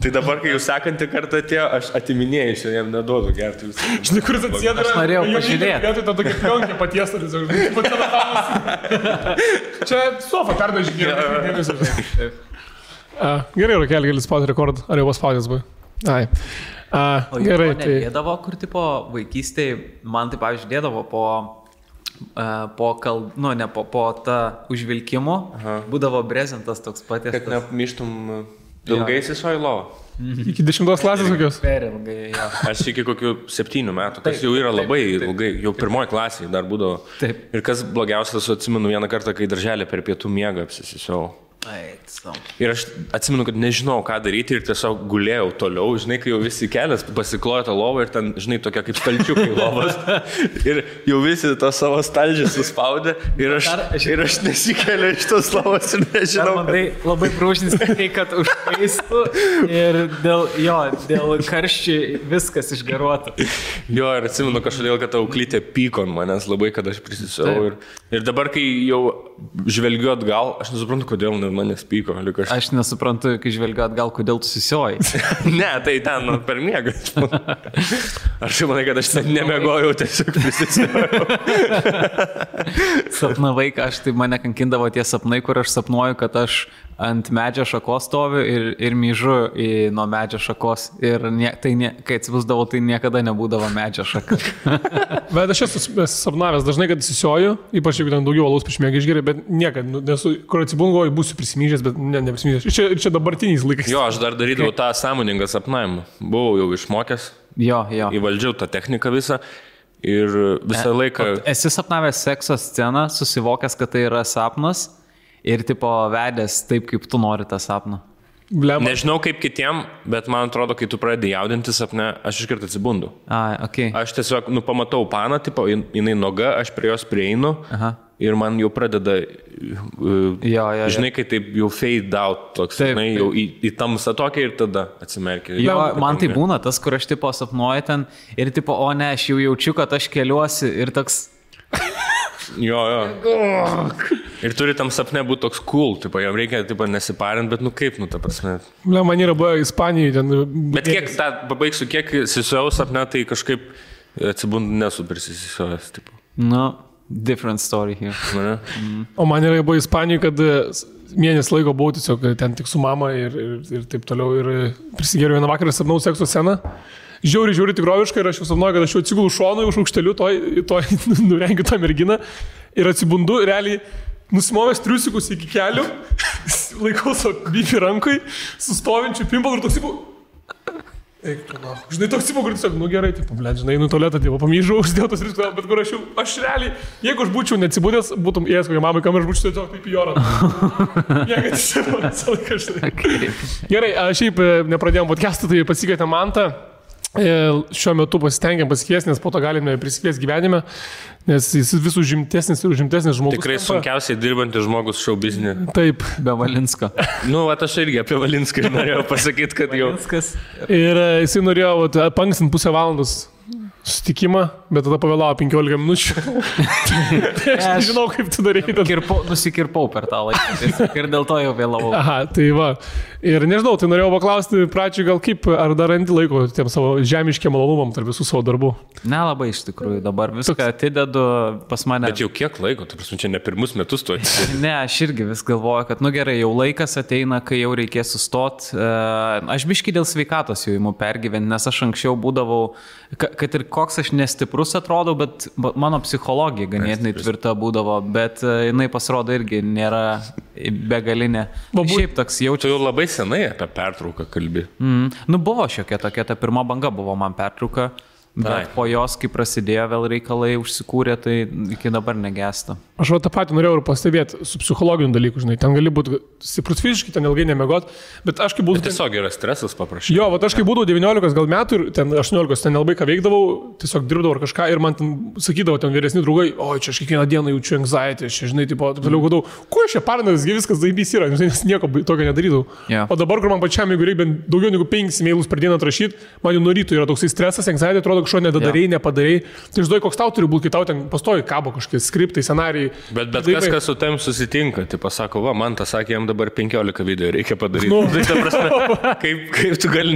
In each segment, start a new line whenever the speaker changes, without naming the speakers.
Tai dabar, kai jūs sekantį kartą atėjo, aš atiminėjau, aš jam neduodu gerti visą.
Žinai, kuris atsėda.
Aš norėjau pažiūrėti.
Vietoj to tokia pionkė patiesta, čia sofa perdažinė. Gerai, Rokelį, gali spaudyti rekordą. Ar jau paspaudęs buvai? Ai. Gerai, tai...
Dėdavo, kur tipo vaikystėje, man tai pavyzdžiui dėdavo po tą užvilkimo, būdavo brezentas toks patiestas.
Kad nemyštum ilgai įsisoji lovą.
Iki 10 klasės kokios?
Per ilgai, jo.
Aš iki kokių 7 metų, kas jau yra labai ilgai, jau 1 klasėje dar būdavo.
Taip.
Ir kas blogiausias, atsimenu vieną kartą, kai darželė per pietų miegą apsisisiau. Ir aš atsimenu, kad nežinau, ką daryti ir tiesiog gulėjau toliau, žinai, kai jau visi kelias pasiklojo tą lovą ir ten, žinai, tokia kaip stalčiukai lovas. Ir jau visi to savo stalčią suspaudė ir aš nesikeliu iš tos lovos ir nežinau.
Labai prūšinis, kad užkaistų ir dėl karščiai viskas išgaruotų.
Jo, ir atsimenu kažkodėl, kad auklytė pyko ant manęs labai, kad aš prisisiau. Ir dabar, kai jau žvelgiu atgal, aš nesuprantu, kodėl manęs pyko.
Aš nesuprantu, kai žvelgiu atgal, kodėl tu susioji.
Ne, tai ten per miegą. Aš manai, kad aš ten nemegojau, tiesiog prisisiojau.
Sapnavai, tai mane kankindavo tie sapnai, kur aš sapnuoju, kad aš ant medžio šakos stoviu ir myžu nuo medžio šakos. Ir kai atsibusdavau, tai niekada nebūdavo medžio šaka.
Bet aš esu sapnavęs dažnai, kad įsisioju, ypač jeigu ten daugiau alaus prieš miegą išgeriu, bet niekad, kur atsibungu, būsiu prisimyžęs, bet neprisimyžęs. Ir čia dabartiniais laikais.
Jo, aš dar darydavau tą sąmoningą sapnavimą. Buvau jau išmokęs.
Jo.
Įvaldžiau tą techniką visą. Ir visą laiką...
Esi sapnavęs sekso sceną, susivokęs, kad tai yra sapnas ir tipo vedęs taip, kaip tu nori tą sapną.
Nežinau kaip kitiem, bet man atrodo, kai tu pradedi jaudinti sapne, aš iškart atsibundu.
Okay.
Aš tiesiog, pamatau paną, tipo, jinai noga, aš prie jos prieinu. Ir man jau pradeda, žinai, kai taip jau fade out, toks, žinai, jau į tamsą tokia ir tada atsimerkia.
Jo, man tai būna tas, kur aš tipo sapnuoju ten ir tipo, o ne, aš jau jaučiu, kad aš keliuosi ir toks...
Jo. Ir turi tam sapne būti toks cool, tipo, jam reikia tipo, nesiparint, bet kaip, ta prasme.
Man yra buvo Ispanijoje ten...
Bet kiek, pabaigsiu, kiek įsisiojau sapne, tai kažkaip atsibundu nesu prisisisiojęs, tipo.
Different story here.
O man yra buvo Ispanijoje, kad mėnesį laiko buvau tiesiog ten tik su mama ir taip toliau ir prisigėriau vieną vakarą sapnau sekso sceną. Žiauri tikroviškai ir aš jau sapnuoju, kad aš jau atsigulu šonu už aukšteliu, nurengiu tą merginą ir atsibundu, realiai nusimovęs triusikus iki kelių, laikau savo bifį rankui, sustovinčių pimpalų ir toks įpau. Eik, žinai, toks įpau, kur tiesiog, gerai, taip, žinai, tualetą, pamyžau, uždėjau tos triusikus, bet kur aš realiai, jeigu aš būčiau neatsibūdęs, būtum ėjęs kokią mamą, kam aš būčiau tiesiog taip į orą. Jeigu tiesiog, visą laiką, žinai. Gerai, šiaip nepradėjom podcastą, tai pasikvietėm Mantą. Šiuo metu pasitengiam pasikviesti, nes po to galime prisikviesti gyvenime, nes jis vis užimtesnis žmogus.
Tikrai sunkiausiai dirbantis žmogus šou biznį.
Taip.
Be Valinsko.
Aš irgi apie Valinską norėjau pasakyti, kad jau...
Ir jisai norėjo pankstinti pusę valandos susitikimą, bet tada pavėlavo 15 minučių. Tai aš nežinau, kaip tu darėjai.
Nusikirpau per tą laiką ir dėl to jau vėlavau.
Aha, tai va. Ir nežinau, tai norėjau paklausti pradžioj gal kaip, ar dar randi laiko tiem savo žemiškiem malonumam tarp visų savo darbų?
Nelabai iš tikrųjų, dabar viską atidedu pas mane.
Bet jau kiek laiko, tai prasme, čia ne pirmus metus tu atidedu.
Ne, aš irgi vis galvoju, kad gerai, jau laikas ateina, kai jau reikės sustot. Aš biškį dėl sveikatos jau imu pergyventi, nes aš anksčiau būdavau, kad ir koks aš nestiprus atrodau, bet mano psichologija ganėtinai tvirta būdavo, bet jinai pasirodo irgi nėra begalinė. Šiaip toks jaučiu.
Tu jau labai senai apie pertrauką kalbi.
Buvo šiokia tokia, ta pirma banga buvo man pertrauka, bet po jos, kai prasidėjo vėl reikalai užsikūrė, tai iki dabar negesta.
Aš tą patį norėjau ir pastebėti su psichologiniu dalyku, žinai, ten gali būti stiprus fiziškai, ten ilgai nemiegot, bet aš kai būdavau...
Tiesiog yra stresas paprašyti.
Jo, aš kai būdavau 19 gal metų ir ten 18, ten nelabai ką veikdavau, tiesiog dirbdavau ar kažką ir man ten sakydavo ten vyresni draugai, oi, čia aš kiekvieną dieną jaučiu anxiety, čia, žinai, taip toliau gadau, kuo aš čia parnas, viskas zaibys yra, nes nieko tokio nedarydavau. O dabar, kur man pačiam, jeigu reikia daugiau negu 5 mailus per dieną atrašyti, man jau nuo ryto yra toksai stresas, anxiety, atrodo, kažko nedadarai, nepadarai. Tai žinai, koks tau turi būti, kai tau ten pastoji kabo kažkokie skriptai, scenarijai.
Bet kas su tam susitinka, tai pasako, va, man tas sakė, jam dabar 15 video reikia padaryti. Tai ta prasme, kaip tu gali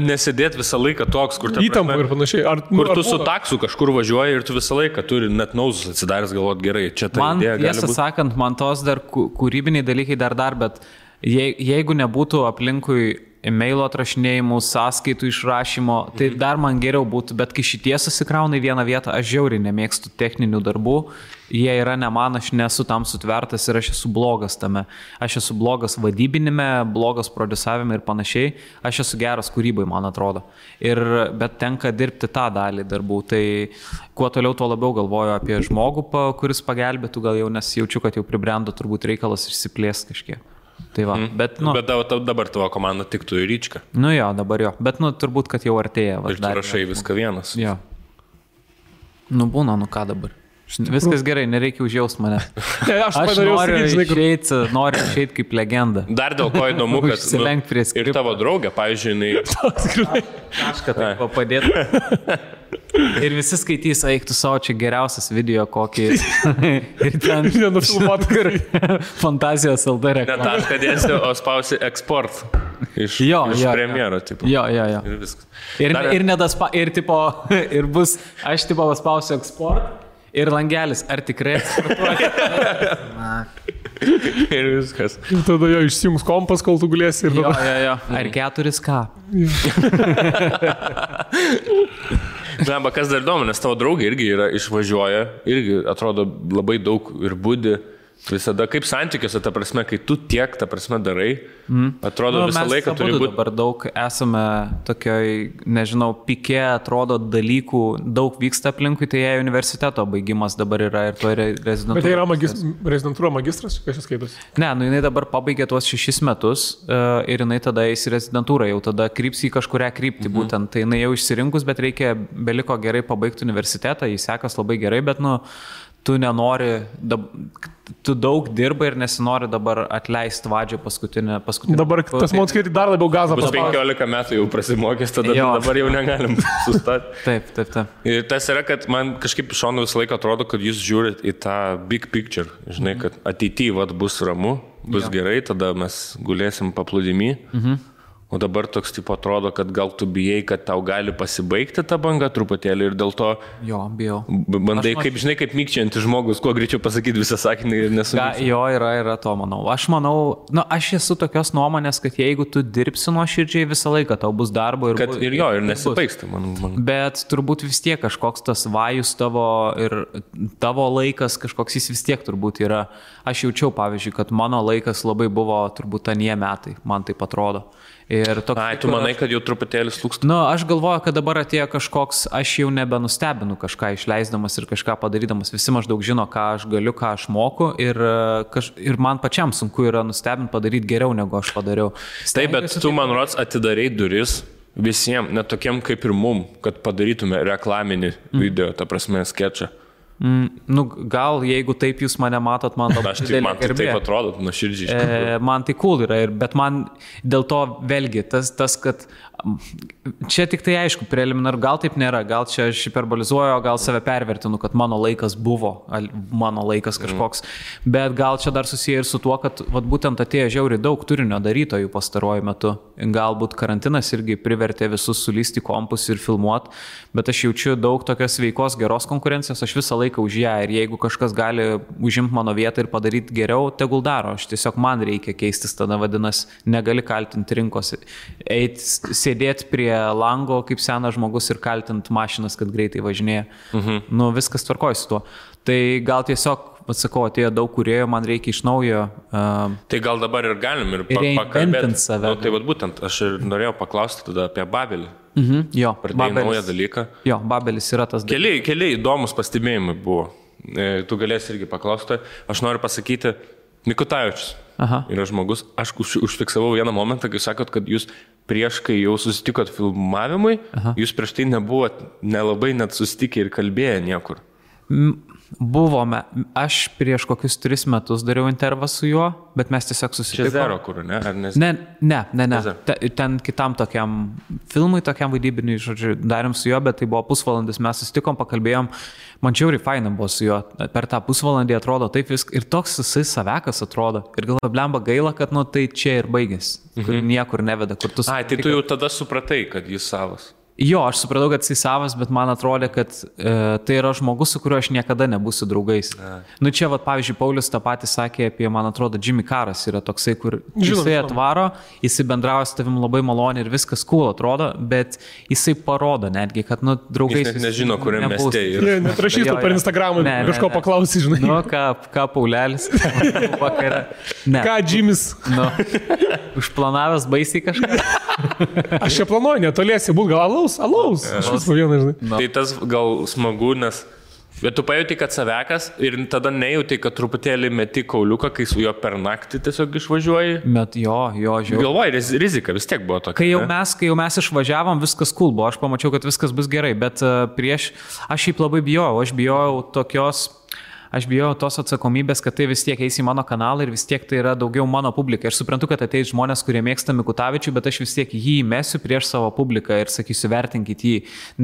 nesėdėti visą laiką toks, kur
įtampa ir panašiai.
Kur tu su taksu kažkur važiuoji ir tu visą laiką turi net nauzus atsidaręs galvot gerai. Čia ta idėja gali būti.
Tiesą sakant, man tos dar kūrybiniai dalykai dar, bet jeigu nebūtų aplinkui e-mailo atrašinėjimų, sąskaitų išrašymo, tai dar man geriau būtų, bet kai šitie susikrauna į vieną vietą, aš žiauriai nemėgstu techninių darbų, jie yra ne man, aš nesu tam sutvertas ir aš esu blogas tame. Aš esu blogas vadybinime, blogas produsavime ir panašiai, aš esu geras kūrybai, man atrodo. Bet tenka dirbti tą dalį darbų, tai kuo toliau, tuo labiau galvoju apie žmogų, kuris pagelbėtų, gal jau nes jaučiu, kad jau pribrendo turbūt reikalas išsiplės kažkiek. Tai va, bet
dabar tavo komanda tiktų į Ryčką.
Nu jo, dabar jo, bet turbūt, kad jau artėja.
Ir tu rašai viską vienas.
Jo. Būna, ką dabar. Viskas gerai, nereikia užjaust mane.
Aš
noriu išeiti kaip legenda.
Dar dėl ko įdomu, kad ir tavo draugė, pavyzdžiui,
kažką taip padėtų. Ir visi skaitys, eik tu savo, čia geriausias video kokį. Ir ten
nenufilmuot, kur
Fantazijos LD reklama.
Ne tašką dėsi, o spausi eksport. Iš premjero, tipo.
Jo.
Ir viskas.
Ir bus, aš tipo paspausiu eksport. Ir langelis, ar tikrai eksportuoji?
Ir viskas.
Ir tada jo išsijungs kompas, kol tu gulėsi.
Jo. Ar 4K?
Na, kas dar įdomu, nes tavo draugė irgi išvažiuoja, irgi atrodo labai daug ir budi. Visada kaip santykiuose, ta prasme, kai tu tiek, ta prasme, darai, atrodo visą laiką turi būti.
Dabar daug esame tokioj, nežinau, pikė, atrodo dalykų, daug vyksta aplinkui, tai jie universiteto baigimas dabar yra ir to rezidentūra. Bet
tai yra rezidentūra magistras, kas jis skaitos?
Ne, jinai dabar pabaigė tuos 6 metus ir jinai tada eis į rezidentūrą, jau tada kryps į kažkurią kryptį būtent. Tai jinai jau išsirinkus, bet beliko gerai pabaigti universitetą, jis sekas labai gerai, bet tu nenori, tu daug dirbai ir nesinori dabar atleisti vadžio paskutinę.
Dabar tas man skaityti dar labiau gazą
paspaudė. 15 metų jau prasimokęs, tada dabar jau negalim sustati.
Taip.
Ir tas yra, kad man kažkaip šonu visą laiką atrodo, kad jūs žiūrit į tą big picture. Žinai, kad ateityje bus ramu, bus gerai, tada mes gulėsim paplūdimy. O dabar toks tipo atrodo, kad gal tu bijai, kad tau gali pasibaigti ta banga truputėlį ir dėl to
bijau.
Bandai, kaip mykčiantis žmogus, kuo greičiau pasakyti visą sakinį ir nesumykti.
Jo, yra to, manau. Aš manau, aš esu tokios nuomonės, kad jeigu tu dirbsi nuoširdžiai visą laiką, tau bus darbo ir...
Ir nesibaigs.
Bet turbūt vis tiek kažkoks tas vajus tavo ir tavo laikas, kažkoks jis vis tiek turbūt yra. Aš jaučiau, pavyzdžiui, kad mano laikas labai buvo turbūt anie metai, man taip atrodo.
Tu manai, kad jau truputėlį slūksta?
Aš galvoju, kad dabar atėjo kažkoks, aš jau nebenustebinu kažką išleisdamas ir kažką padarydamas. Visi maždaug žino, ką aš galiu, ką aš moku ir man pačiam sunku yra nustebinti padaryti geriau, negu aš padariau.
Taip, bet tu, man rods, atidarei duris visiems, net tokiem kaip ir mum, kad padarytume reklaminį video, ta prasme, sketčą.
Gal jeigu taip jūs mane matot, man labai didelė
man tai taip atrodo, nuoširdžiai.
Man tai cool yra, bet man dėl to vėlgi tas, kad čia tik tai aišku, preliminar, gal taip nėra, gal čia aš hiperbolizuoju, gal save pervertinu, kad mano laikas buvo, mano laikas kažkoks, bet gal čia dar susiję ir su tuo, kad būtent atėjo žiauriai daug turinio darytojų pastaruoju metu. Galbūt karantinas irgi privertė visus sulysti kompus ir filmuot, bet aš jaučiu daug tokios sveikos, geros konkurencijos, aš visą laiką už ją ir jeigu kažkas gali užimti mano vietą ir padaryti geriau, tegul daro, aš tiesiog man reikia keistis, tada vadinasi, negali kaltinti rinkos, sėdėti prie lango kaip senas žmogus ir kaltinti mašinas, kad greitai važinėja. Viskas tvarkoja su tuo. Tai gal tiesiog, atsakau, atėjo daug kūrėjų, man reikia iš naujo.
Tai gal dabar ir galim ir pakalbėti. Tai būtent, aš ir norėjau paklausti tada apie Babelį.
Jo,
pradėjai naują dalyką.
Jo, Babelis yra tas dalykas.
Keli įdomus pastebėjimai buvo. Tu galėsi irgi paklausti. Aš noriu pasakyti, Mikutavičius yra žmogus. Aš užfiksavau vieną momentą, kai sakot, kad jūs prieš, kai jau susitikot filmavimui, jūs prieš tai nebuvot nelabai net susitikę ir kalbėję niekur.
Buvome. Aš prieš kokius 3 metus dariau intervą su juo, bet mes tiesiog susitikome.
Čia Zero, kur, ne? Ar nes...
Ne. Ten kitam tokiam filmui, tokiam vaidybiniui, žodžiu, darėm su juo, bet tai buvo pusvalandis, mes susitikom, pakalbėjom. Man čiauriai faina buvo su juo. Per tą pusvalandį atrodo taip viskas. Ir toks jisai savekas atrodo. Ir galvoju, blemba gaila, kad nu tai čia ir baigėsi. Kur niekur neveda. Kur tu
tai tu jau tada supratai, kad jis savas.
Jo, aš supratau, kad jis savas, bet man atrodė, kad tai yra žmogus, su kuriuo aš niekada nebūsiu draugais. Nu čia, pavyzdžiui, Paulius tą patį sakė apie, man atrodo, Jimmy Caras yra toksai, kur jisai atvaro, jisai bendrauja su tavim labai maloniai ir viskas cool atrodo, bet jisai parodo netgi, kad, nu, draugais...
Jis nežino, kuriam mieste yra.
Netrašys tu per Instagramą, kažko paklausy, žinai.
Nu, ką Paulelis vakarą.
Ką Jimmys?
Nu, užplanavęs baisiai kažką.
Aš čia planuoju, netoliesi būt gal alaus. Aš vis po vieną, žinai.
Tai tas gal smagu, nes... Bet tu pajauti, kad savekas ir tada nejauti, kad truputėlį meti kauliuką, kai su juo per naktį tiesiog išvažiuoji.
Bet jo, žiūrėjau.
Galvoji, rizika vis tiek buvo tokia.
Kai jau mes išvažiavom, viskas cool buvo. Aš pamačiau, kad viskas bus gerai, bet aš šiaip labai bijojau. Aš bijojau tos atsakomybės, kad tai vis tiek eis į mano kanalą ir vis tiek tai yra daugiau mano publika. Aš suprantu, kad ateis žmonės, kurie mėgsta Mikutavičių, bet aš vis tiek jį įmesiu prieš savo publiką ir sakysiu, vertinkit jį.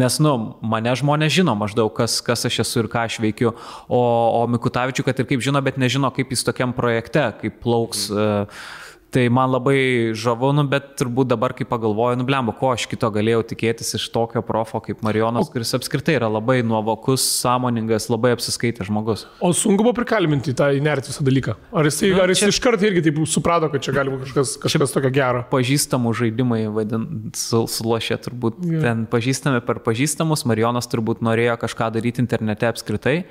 Nes, mane žmonės žino maždaug, kas aš esu ir ką aš veikiu. O Mikutavičių, kad ir kaip žino, bet nežino, kaip jis tokiam projekte, kaip plauks. Tai man labai žavu, bet turbūt dabar, kai pagalvoju, blemba, ko aš kito galėjau tikėtis iš tokio profo kaip Marijonas, kuris apskritai yra labai nuovokus, sąmoningas, labai apsiskaitęs žmogus.
O sunku buvo prikalbinti tą įnerti visą dalyką? Ar jis iš karto irgi taip suprato, kad čia gali būti kažkas tokio gero?
Pažįstamų žaidimai, sulošė turbūt. Ten pažįstami per pažįstamus, Marijonas turbūt norėjo kažką daryti internete apskritai.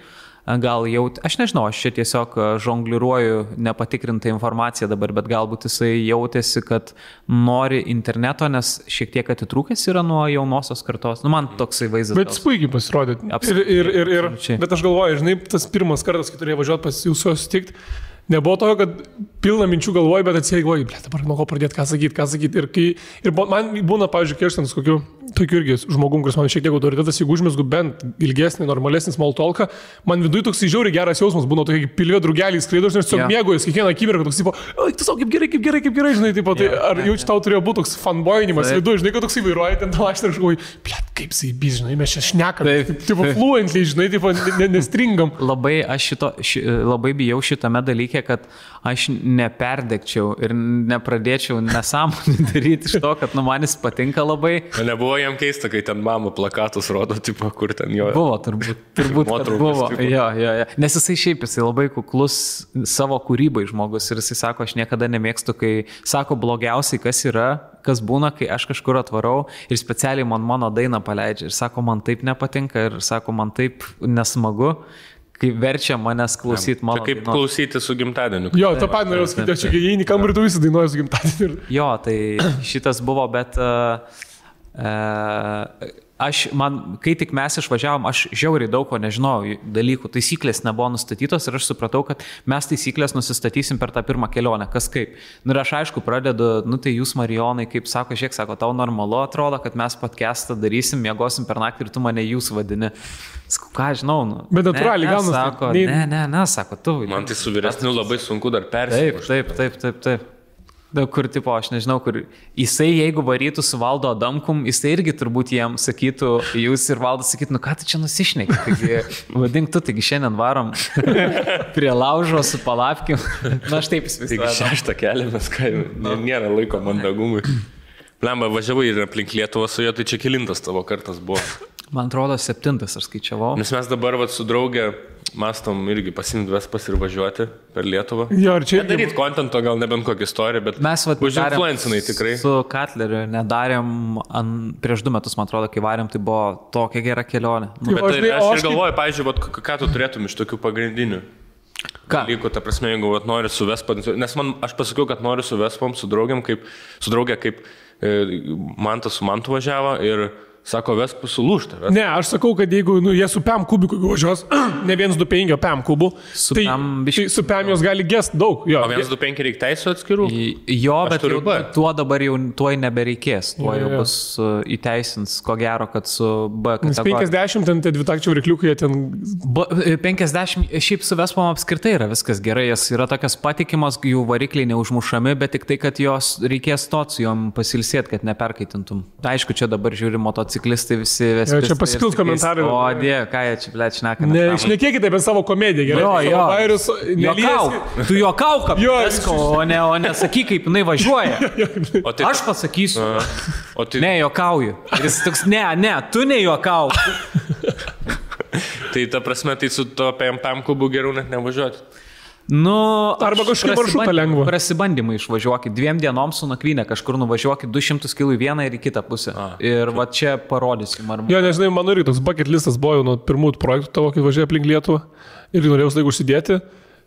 Gal jau, aš nežinau, aš čia tiesiog žongliruoju nepatikrintą informaciją dabar, bet galbūt jisai jautėsi, kad nori interneto, nes šiek tiek atitrūkęs yra nuo jaunosios kartos. Man toksai vaizdas.
Bet puikiai pasirodė. Bet aš galvoju, žinai, tas pirmas kartas, kai turėjau važiuoti pas jūsų susitikti, nebuvo to, kad pilna minčių galvoju, bet atsiegoju, dabar nuo ko pradėti, ką sakyti. Ir man būna, pavyzdžiui, kai aš ten su kokiu tokiu irgi žmogum, kuris man šiek tiek autoritetas, jeigu užmesgu bent ilgesnį, normalesnį small talką, man viduje toks žiauriai geras jausmas, būna tokie pilvė drugeliai skraido, aš tiesiog mėgaujuosi kiekvieną akimirką, toks, tu savo kaip gerai, žinai, tai ar jau čia tau turėjo būti toks fanboyinimas viduje, žinai, kad toks įvairuoja, ten tau aš ir žinai, kaip jisai, žinai, mes čia šnekame, tipo fluently, žinai, tipo nestringam.
Labai bijau šitame dalyke, kad aš neperdegčiau ir nepradėčiau nesąmonį daryti iš to, kad manis patinka labai.
Nebuvo jam keista, kai ten mama plakatus rodo, tipo, kur ten jo.
Buvo, turbūt buvo. Jo. Nes jisai labai kuklus savo kūrybai žmogus ir jisai sako, aš niekada nemėgstu, kai sako blogiausiai, kas būna, kai aš kažkur atvarau ir specialiai mano dainą paleidžia ir sako, man taip nepatinka ir sako, man taip nesmagu. Kai verčia manęs klausyti mano.
Tai kaip klausyti su gimtadieniu.
Jo, tą pat norėjau sakyti, aš čia įeini kamerį, tu visi dainuoji su gimtadieniu.
Jo, tai šitas buvo, bet kai tik mes išvažiavom, aš žiauriai daug ko nežinojau dalykų, taisyklės nebuvo nustatytos ir aš supratau, kad mes taisyklės nusistatysim per tą pirmą kelionę, kas kaip. Ir aš aišku pradedu, tai jūs Marijonai, kaip sako, sako, tau normalu atrodo, kad mes podcastą darysim, miegosim per naktį ir tu mane jūs vadini. Sakau, ką žinau,
Bet natūraliai gaunasi.
Sako, ne, sako, tu.
Man tai su vyresniu labai sunku dar persimušti.
Taip. Kur, tipo, aš nežinau, kur jisai, jeigu varytų su Valdo Adamkum, jisai irgi turbūt jiem sakytų, jūs ir Valdas sakytų, ką tu čia nusišneki, taigi vadink tu, taigi šiandien varom prie laužo su palapkim. Aš taip įsivaizduoju.
Taigi 6 keliamės, nėra laiko mandagumui. Blemba, važiavai ir aplink Lietuvą su juo, tai čia kelintas tavo kartas buvo.
Man atrodo, 7 aš skaičiavau.
Nes mes dabar su draugė mastom irgi pasimti Vespas ir važiuoti per Lietuvą.
Jo, ir čia
daryti kontento, gal nebent kokią istoriją, bet
mes
užinfluencinai tikrai.
Su Katleriu nedarėm prieš 2 metus, man atrodo, kai varėm, tai buvo tokia gera kelionė.
Bet aš ir galvoju, pavyzdžiui, ką tu turėtum iš tokių pagrindinių dalykų, ta prasme, jeigu nori su Vespa, nes aš pasakiau, kad noriu su Vespom, su draugė, kaip Mantas su Mantu važiavo ir Sako, vesk sulūžta.
Ne, aš sakau, kad jeigu jie su PEM kubiku važiuos, ne 125 PEM kubų, tai su PEM jos gali gest daug. Jo.
O 125 reikia teisų atskirų?
Jo, bet tuo dabar jau tuoj nebereikės. Tuo jau bus įteisins, ko gero, kad su B kategorija.
50 ten tie dvitakčių varikliukai ten...
50 šiaip su Vespom apskritai yra viskas gerai. Jas yra tokios patikimos, jų varikliai neužmušami, bet tik tai, kad jos reikės stot su jom pasilsėti, kad neperkaitintum. Aišku, čia dabar žiūri motociklistai visi vespistai.
Čia pasikils komentarai.
O, Dieve, ką jie čia, blėt, šneka.
Ne, šnekėkite apie savo komediją, gerai?
Jo.
Vairius,
tu juokauk, o ne sakyk, kaip jinai važiuoja. Aš pasakysiu. Ne, juokauju. Ir jis toks, ne, tu nejuokauk.
Tai ta prasme, tai su to PEM kubu geriau net nevažiuoti.
Arba kažkaip maršrutą lengva.
Prasibandymai išvažiuokit. 2 dienom su nakvynė kažkur nuvažiuokit 200 km į vieną ir į kitą pusę. Ir va čia parodysim.
Jo, nežinai, mano irgi toks bucket listas buvo jau nuo pirmųjų projektų tavo, kai važiuoja aplink Lietuvą. Ir norėjau laiku užsidėti.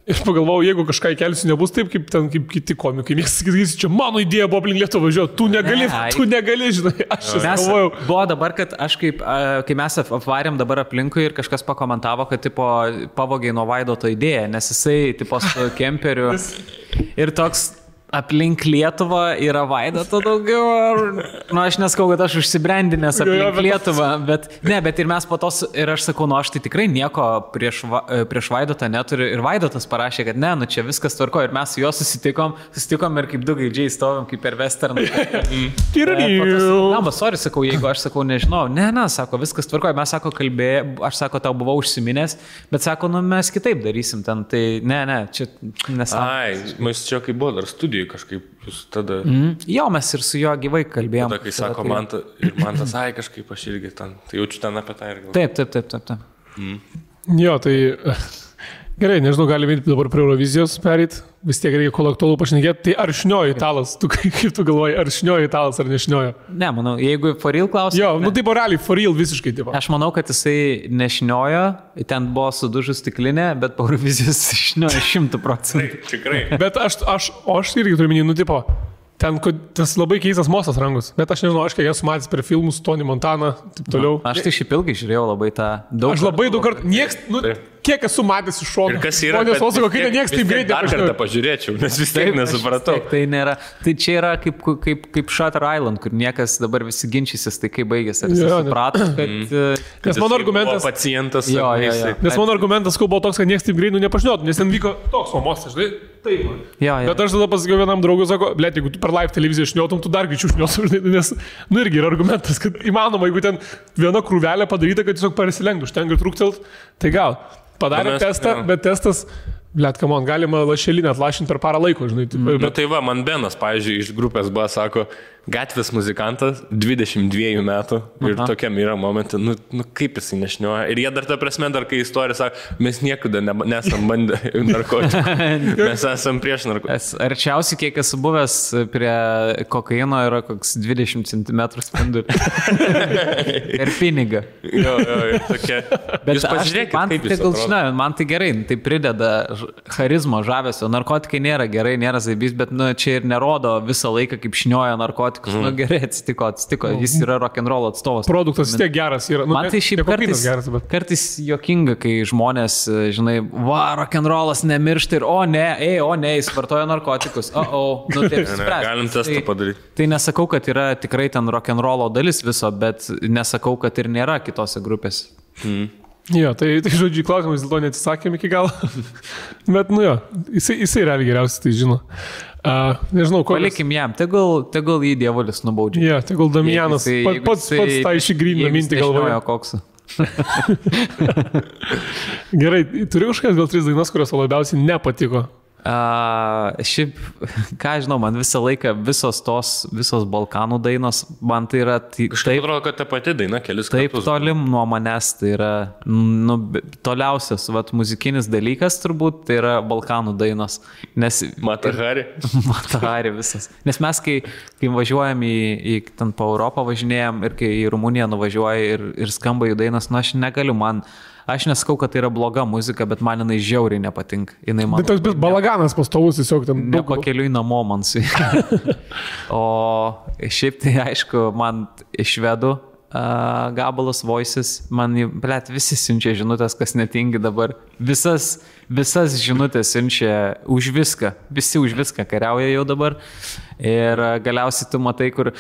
Ir pagalvojau, jeigu kažką įkelsiu, nebus taip, kaip kiti komikai. Mėgsta sakyti, čia mano idėja buvo aplink Lietuvą važiuoti. Tu negali, žinai. Aš galvojau.
Buvo dabar, kad aš kai mes apvarėm dabar aplinkui ir kažkas pakomentavo, kad tipo pavogiai nuo Vaidoto idėją, nes jisai tipo su kemperiu ir toks aplink Lietuvą yra Vaidoto daugiau. Aš neskau, kad aš užsibrendinęs aplink Lietuvą, bet ir mes po tos, ir aš sakau, aš tai tikrai nieko prieš Vaidotą neturiu. Ir Vaidotas parašė, kad ne, čia viskas tvarko. Ir mes su juo susitikom ir kaip du gaidžiai stovim, kaip per westerną. Sorry, sakau, jeigu aš sakau, nežinau. Ne, sako, viskas tvarko. Mes sako, aš sako, tau buvau užsiminęs, bet sako, mes kitaip darysim ten. Tai ne, čia nesąmonė.
Mes čia kaip buvo dar studijų kažkaip jūs tada...
Jo, mes ir su juo gyvai kalbėjom.
Tada, kai sako, man tas, kažkaip aš irgi ten, tai jaučiu ten apie tą ir
galvoju. Taip.
Jo, tai gerai, nežinau, galime dabar prie Eurovizijos perėti, vis tiek reikia kol aktualu pašnekėti. Tai ar šniojo italas? Kaip tu galvoji, ar šniojo italas ar nešniojo?
Ne, manau, jeigu for real klausimas.
Jo, taip realiai, for real visiškai taip.
Aš manau, kad jisai nešniojo, ten buvo sudužus stiklinė, bet po Eurovizijos šniojo 100%.
Tikrai.
Bet aš irgi turiu minį, tipo, ten tas labai keistas mostas rangus, bet aš nežinau, aš kiek esu matęs per filmus, Tony Montana, taip toliau.
Aš tai šiaip ilgai žiūrėjau labai tą daug.
Aš labai daug kartų, kiek esu matęs iš šono.
Ir kas yra,
nieks taip greitai
dar kartą pažiūrėčiau, nes vis tiek nesupratau.
Tai nėra, tai čia yra kaip Shutter Island, kur niekas dabar visi ginčysis, tai kaip baigėsi. Ar jis suprato, kad...
Nes mano argumentas...
Pacientas.
Nes mano argumentas buvo toks, kad nieks taip greitai nepažinotų, nes ten vyko toks mostas, žinai. Taip. Bet aš tada pasakiau vienam draugui, sako, blėt, jeigu tu per live televiziją šniotum, tu dar greičiau šniotum, nes, irgi yra argumentas, kad įmanoma, jeigu ten viena krūvelė padaryta, kad tiesiog persilenktų, užtenka trūktelt, tai gal. Padarė testą, bet testas, blėt, kamon, galima lašelinę atlašinti per parą laiko, žinai.
Tai va, man Benas, pavyzdžiui, iš grupės B sako, gatvės muzikantas, 22 metų ir tokiam yra momentai, kaip jisai nešnioja. Ir jie dar ta prasme, dar kai istorija sako, mes niekada nesam bandę narkotikų, mes esam prieš narkotikus.
Arčiausiai, kiek esu buvęs prie kokaino, yra koks 20 cm spindulį. Ir pinigą.
Jo, tokia.
Bet jūs pažiūrėkit, kaip jis atrodo. Man tai gerai, tai prideda charizmo, žavesio. Narkotikai nėra gerai, nėra zaibys, bet čia ir nerodo visą laiką, kaip šnioja narkotikai. Gerai atsitiko, jis yra rock'n'roll atstovas.
Produktas vis tiek geras yra.
Man tai šiaip kartais juokinga, kai žmonės, žinai, rock'n'rollas nemiršta ir o ne, jis vartoja narkotikus. Taip spręs.
Galim testą padaryti.
Tai nesakau, kad yra tikrai ten rock'n'rollo dalis viso, bet nesakau, kad ir nėra kitose grupėse.
Jo, tai žodžiu, klausimas dėl to neatsisakėm iki galo. Bet, jisai realiai geriausiai tai žino. Nežinau, ko.
Palikim jam, tegul jį dievulis nubaudžia.
Jo, tegul Damianas pats tą išgrynina mintį galvoje.
Koksą.
Gerai, turiu kažkas gal 3 dainas, kurios labiausiai nepatiko.
Šiaip, ką žinau, man visą laiką visos Balkanų dainos, man tai yra...
Kažkaip atrodo, kad ta pati daina kelis kartus.
Taip tolim nuo manęs, tai yra toliausias muzikinis dalykas turbūt, tai yra Balkanų dainos.
Matahari
visas. Nes mes, kai važiuojam ten po Europą važinėjom ir kai į Rumuniją nuvažiuoja ir skamba jų dainos, aš negaliu, aš nesakau, kad tai yra bloga muzika, bet man jinai žiauriai nepatinka.
Tai toks balaganas pastovus tiesiog ten.
Nepakeliui namo man su. O šiaip tai aišku, man iš švedų gabalas Voices, man, blėt, visi siunčia žinutės, kas netingi dabar. Visas žinutės siunčia už viską, visi už viską kariauja jau dabar. Ir galiausiai tu matai, kur,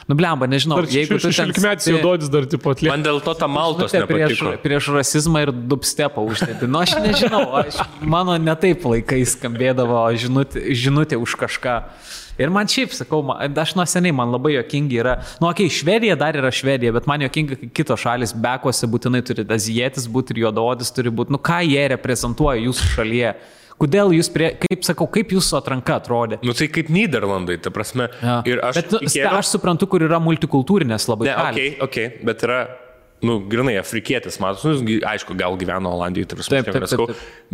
blemba, nežinau,
jeigu tu ten... 16-metis jau duodis dar tipo atlieka.
Man dėl to ta Maltos nepatiko.
Prieš rasizmą ir dubstepą uždėti. Aš nežinau, mano netaip laikais skambėdavo žinutė už kažką. Ir man šiaip, sakau, aš nuo seniai, man labai jokingi yra, Švedija dar yra Švedija, bet man jokinga, kai kitos šalis bekuose būtinai turi azijietis būti ir juodaodis turi būti, ką jie reprezentuoja jūsų šalyje. Kodėl jūs, kaip jūsų atranka atrodė?
Tai kaip Nyderlandai, ta prasme.
Ja.
Ir
aš suprantu, kur yra multikultūrinės labai.
Okay, bet yra... grinai afrikietis, matos, aišku, gal gyveno Olandijoje, taip.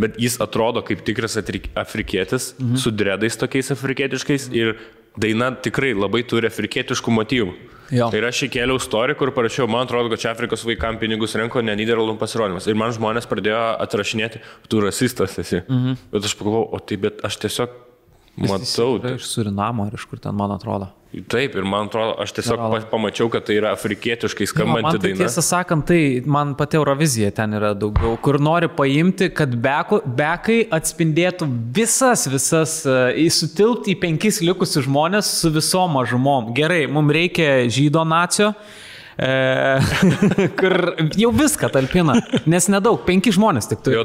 Bet jis atrodo kaip tikras afrikietis, su dredais tokiais afrikietiškais ir daina tikrai labai turi afrikietiškų motyvų. Jo. Ir aš įkėliau story, kur parašiau, man atrodo, kad čia Afrikos vaikams pinigus renko, ne Nyderlandų pasirodymas. Ir man žmonės pradėjo atrašinėti, tu rasistas esi. Bet aš pagalvojau, bet aš tiesiog matau.
Iš Surinamo ar iš kur ten, man atrodo.
Taip, ir man atrodo, aš tiesiog pamačiau, kad tai yra afrikietiškai skambanti daina.
Tiesą sakant, tai man pati Eurovizija ten yra daugiau, kur nori paimti, kad bekai atspindėtų visas, sutilpti į 5 likusius žmonės su visom mažumom. Gerai, mums reikia žydo nacio, kur jau viską talpina, nes nedaug, 5 žmonės tik turi.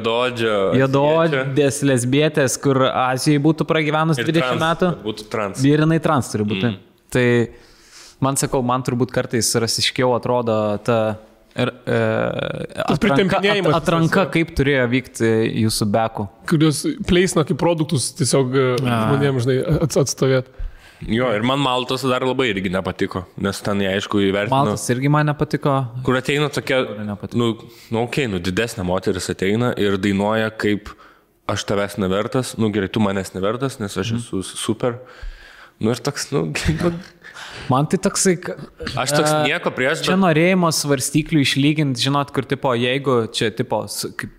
Juodaodės, lesbietės, kur Azijai būtų pragyvenus 20 metų.
Būtų trans.
Ir jinai trans turi būti. Tai man sakau, man turbūt kartais rasiškiau atrodo ta atranka, kaip turėjo vykti jūsų bekų.
Kurios pleisna kaip produktus tiesiog žmonėms, žinai, atstovėti.
Jo, ir man Maltos dar labai irgi nepatiko, nes ten jie aišku įvertino.
Maltas irgi man nepatiko.
Kur ateina tokia, didesnė moteris ateina ir dainuoja kaip aš tavęs nevertas, gerai, tu manęs nevertas, nes aš esu super. Ir toks,
man tai toksai...
Aš toks nieko prieš,
čia norėjimas svarstyklių išlyginti, žinot, kur tipo, jeigu čia tipo,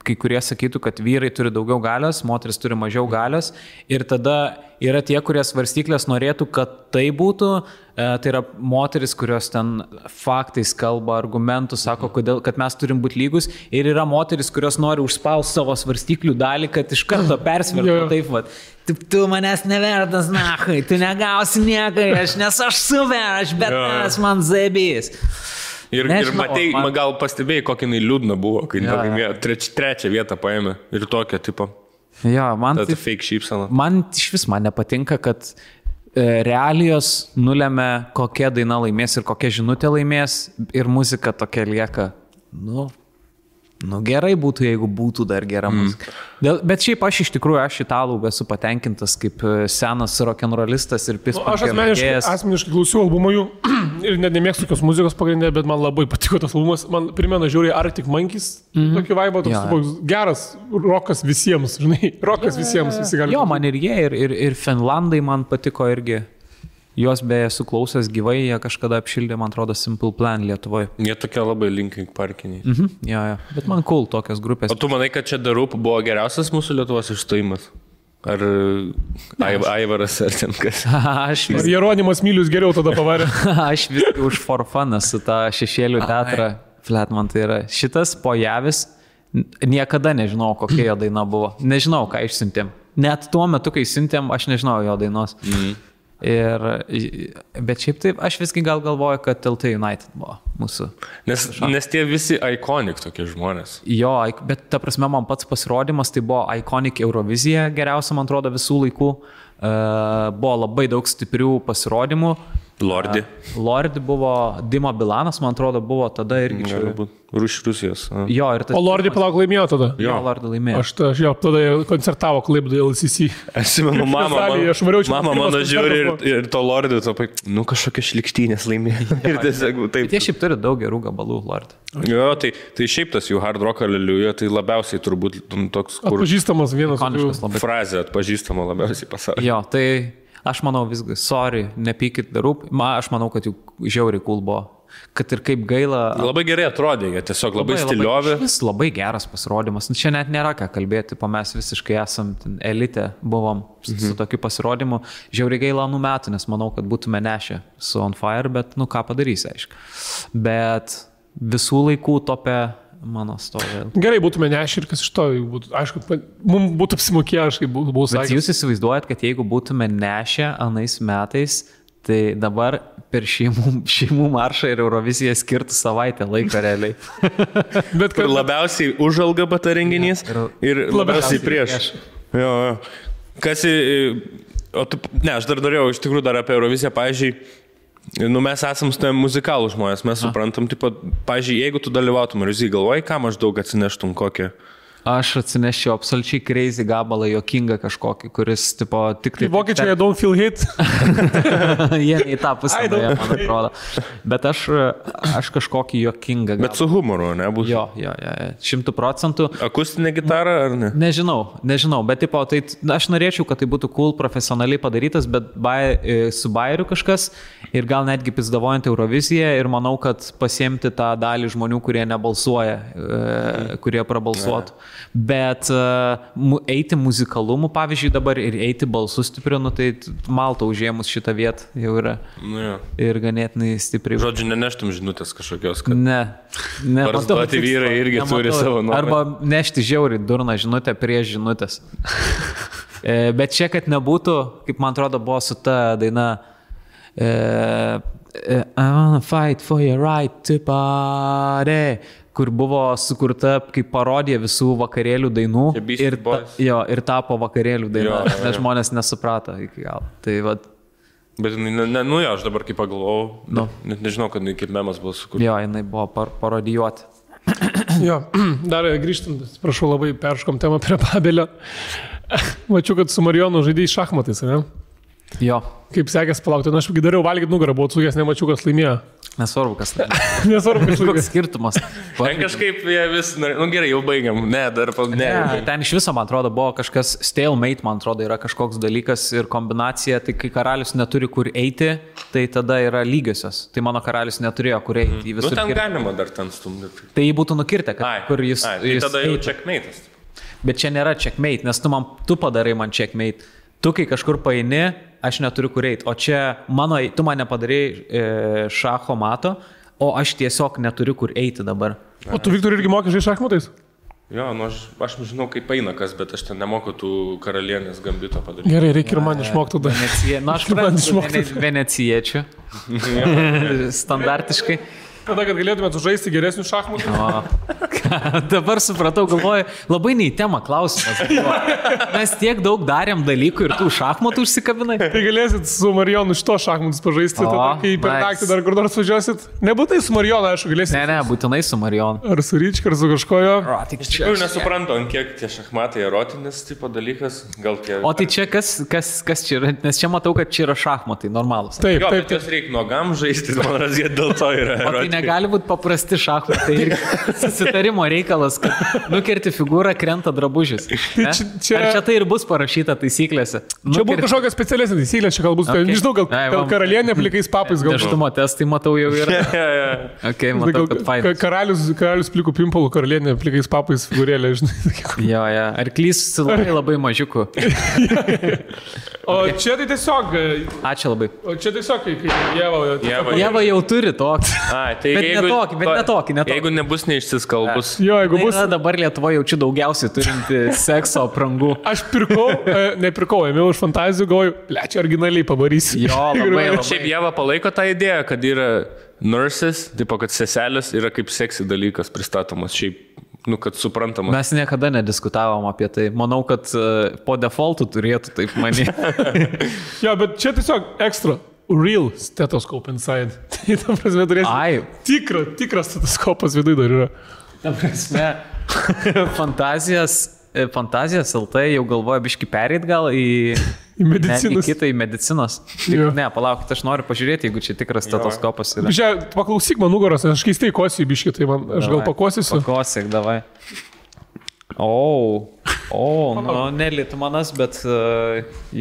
kai kurie sakytų, kad vyrai turi daugiau galios, moteris turi mažiau galios ir tada yra tie, kurie svarstyklės norėtų, kad tai būtų, tai yra moteris, kurios ten faktais kalba, argumentų, sako, kad mes turim būti lygus ir yra moteris, kurios nori užspausti savo svarstyklių dalį, kad iš karto persvertų taip, va. Tu manęs nevertas, nachai, tu negausi niekai, nes aš super, aš bet man zaibys.
Ir matai, gal pastebėjai, kokį jinai liūdna buvo, kai trečią vietą paėmė ir tokią tipo.
Jo, man
tai fake šypsena.
Man iš vis man nepatinka, kad realijos nulemia, kokia daina laimės ir kokia žinutė laimės ir muzika tokia lieka, gerai būtų, jeigu būtų dar gera muzika. Bet šiaip aš iš tikrųjų, aš italų esu patenkintas kaip senas rock'n'rollistas ir
Aš asmeniškai klausiau albumą jų ir net nemėgstu tokios muzikos pagrindė, bet man labai patiko tas albumas. Man primena žiauriai Arctic Monkeys, tokį vaibą, toks geras rokas visiems, žinai, rokas visiems, visi gali.
Jo, man ir jie, ir Finlandai man patiko irgi. Jos beje suklausęs gyvai, jie kažkada apšildė, man atrodo, Simple Plan Lietuvoje.
Jie tokie labai Linkin Parkiniai.
Jo. Bet man cool tokios grupės.
O tu manai, kad čia The Roop buvo geriausias mūsų Lietuvos išstojimas? Ar Aivaras ar ten kas?
Ar Jeronimas Milius geriau tada pavarė?
Aš viskai už for fun su tą šešėlių teatrą. Flat man tai yra. Šitas Pojavis, niekada nežinau, kokia jo daina buvo. Nežinau, ką išsiuntėm. Net tuo metu, kai siuntėm, aš nežinau jo dainos. Bet šiaip taip, aš visgi gal galvoju, kad TLT United buvo mūsų.
Nes tie visi iconic tokie žmonės.
Jo, bet ta prasme man pats pasirodymas, tai buvo iconic Eurovizija, geriausia, man atrodo, visų laikų. Buvo labai daug stiprių pasirodymų. Lordi buvo, Dima Bilanas, man atrodo, buvo tada irgi čia.
Rusijos.
Jo,
o Lordi palauk laimėjo tada?
Jo, Lordi laimėjo.
Aš jau tada koncertavo Klaipėdoje LCC.
Aš įmenu, mama mano žiūri ir to Lordi, kažkokia šlikštynės laimėjo. Ir tiesiog taip.
Bet jie šiaip turi daug gerų gabalų, Lordi.
Jo, tai šiaip tas jų hard rock aleliuja, tai labiausiai turbūt toks, kur...
Atpažįstamas vienas.
Frazė atpažįstama labiausiai pasaulyje.
Jo, tai... Aš manau visgi, sorry, nepykit The Roop. Aš manau, kad jų žiauriai cool buvo. kad ir kaip gaila.
Labai gerai atrodė, jie tiesiog labai stiliovi.
Vis labai geras pasirodymas. Čia net nėra ką kalbėti, mes visiškai esam elite, buvom su tokiu pasirodymu. Žiauriai gaila anų metų, nes manau, kad būtume nešę su On Fire, bet ką padarysi, aišku. Bet visų laikų topė mano stovė.
Gerai, būtume nešę ir kas iš to, aišku, mums būtų apsimokėję, aš kaip buvau sakęs.
Bet jūs įsivaizduojat, kad jeigu būtume nešę anais metais, tai dabar per šeimų maršą ir Euroviziją skirtų savaitę laiko realiai.
Bet kad labiausiai už LGBT renginys ir labiausiai prieš. Jo. Kas aš dar norėjau iš tikrųjų dar apie Euroviziją, pavyzdžiui, mes esam muzikalų žmonės, mes suprantam, pavyzdžiui, jeigu tu dalyvautum Euroviziją, galvoji, ką maždaug atsineštum kokią?
Aš atsinešiu absoliučiai crazy gabalą, jokingą kažkokį, kuris, tipo, tik tai...
Vokiečiai, I don't feel hit.
Jie į tą pusę, man atrodo. Bet aš kažkokį jokingą gabalą.
Bet su humoru, ne? Bus.
Jo, 100%.
Akustinė gitara, ar ne?
Nežinau, bet, tipo, tai aš norėčiau, kad tai būtų cool, profesionaliai padarytas, bet su bairiu kažkas ir gal netgi pizdavojant Euroviziją ir manau, kad pasiemti tą dalį žmonių, kurie nebalsuoja, kurie prabalsuotų. Bet eiti muzikalumu, pavyzdžiui, dabar ir eiti balsu stipriu, tai Malta užėmus šitą vietą jau yra. Ir ganėtinai stipriai.
Žodžiu, neneštum žinutės kažkokios, kad...
Ne.
Barzdoti vyrai irgi turi savo nuomonę.
Arba nešti žiauriai durną žinutę prieš žinutės. Bet čia, kad nebūtų, kaip man atrodo, buvo su ta daina I wanna fight for your right to party, kur buvo sukurta kaip parodija visų vakarėlių dainų ir tapo vakarėlių daina, nes žmonės nesuprato iki galo. Tai vat.
Bet aš dabar kaip pagalvojau, net nežinau, kad kaip memas buvo sukurta.
Jo, jinai buvo parodijuoti.
Jo, dar grįžtant, prašau, labai perškom temą prie Babelio. Mačiau, kad su Marijonu žaidėjai šachmatais, ne?
Jo.
Kaip sekės palaukti, aš dariau valgyti nugarą, buvau atsukęs, nemačiau, kas laimėjo.
Nesvarbu, kas laimėjo.
Nesvarbu, kas laimėjo.
Koks skirtumas.
Ten kažkaip jie vis, gerai, jau baigiam.
Ten iš viso, man atrodo, buvo kažkas stalemate, man atrodo, yra kažkoks dalykas ir kombinacija, tai kai karalius neturi kur eiti, tai tada yra lygiosios. Tai mano karalius neturėjo kur eiti.
Ten galima dar ten stumdyti.
Tai jį būtų nukirtę, kur jis...
Tai tada jau checkmate'as.
Bet čia nėra checkmate, nes tu padarai man checkmate. Tu kai kažkur paini, aš neturiu kur eiti. O čia tu man nepadarai šacho mato, o aš tiesiog neturiu kur eiti dabar.
O tu, Viktor, irgi moki žaisti šachmatais?
Jo, aš žinau, kaip eina kas, bet aš ten nemoku tų karalienės gambito padaryti.
Gerai, reikia ir man išmokti tada.
Aš venecijiečių. Standartiškai.
Tada, kad galėtumėt žaisti geresnių šachmatų.
Dabar supratau, galvoju, labai nei tema klausimas. Mes tiek daug darėm dalykų ir tų šachmatų užsikabinai.
Tai galėsit su Marijonu šito šachmatus pažaisti, tada, kai per naktį dar kur nors važiuosit. Nebūtai su Marijonu, aišku, galėsit.
Ne, būtinai su Marijonu.
Ar su Ryčka, ar su kažkojo.
Iš tikrųjų nesuprantu, ant kiek tie šachmatai erotinis tipo dalykas.
O tai čia kas čia yra? Nes čia matau, kad čia yra šachmatai, normalus.
Taip,
bet jos reikia nuogam žaisti, man razė dėl to yra erotinis.
Negali būti paprasti šachmatai ir susitarimo reikalas, kad nukerti figūrą, krenta drabužis. Ar čia tai ir bus parašyta taisyklėse?
Čia būtų kažkokia specialesnė taisyklė, čia galbūt, nežinau, gal karalienė plikais papais gal.
Neštumo testai, matau, jau yra. Ok, matau, kad fainas.
Karalius plikų pimpalų, karalienė plikais papais figūrėlė, žinai.
Jo. Arklys labai mažiuku.
O čia tai tiesiog...
Ačiū labai.
O čia tiesiog, kai
Jeva jau turi tokį.
Bet
netokį.
Jeigu nebus neišsiskalbus.
Jo, jeigu bus.
Dabar Lietuvoje jaučiu daugiausiai turinti sekso aprangų.
Aš nepirkau, ėmiau iš fantazijų, galvoju, čia originaliai pavarysiu.
Jo, labai.
Šiaip Jeva palaiko tą idėją, kad yra nurses, tipo, kad seselės yra kaip seksy dalykas pristatomas šiaip. Kad suprantamas.
Mes niekada nediskutavom apie tai. Manau, kad po defaultu turėtų taip manyti.
Jo, bet čia tiesiog ekstra. Real stethoscope inside. Tai ta prasme turėsi tikras stetoskopas viduje dar yra.
Ta prasme, fantazijas LT jau galvoja biški pereit gal į
medicinos.
Į kitą, į medicinos. Ne, palaukit, aš noriu pažiūrėti, jeigu čia tikras stetoskopas yra.
Čia paklausyk man nugaros, aš keistai kosiu biški, tai aš gal pakosysiu.
Pakosyk, davai. Nelitmanas, bet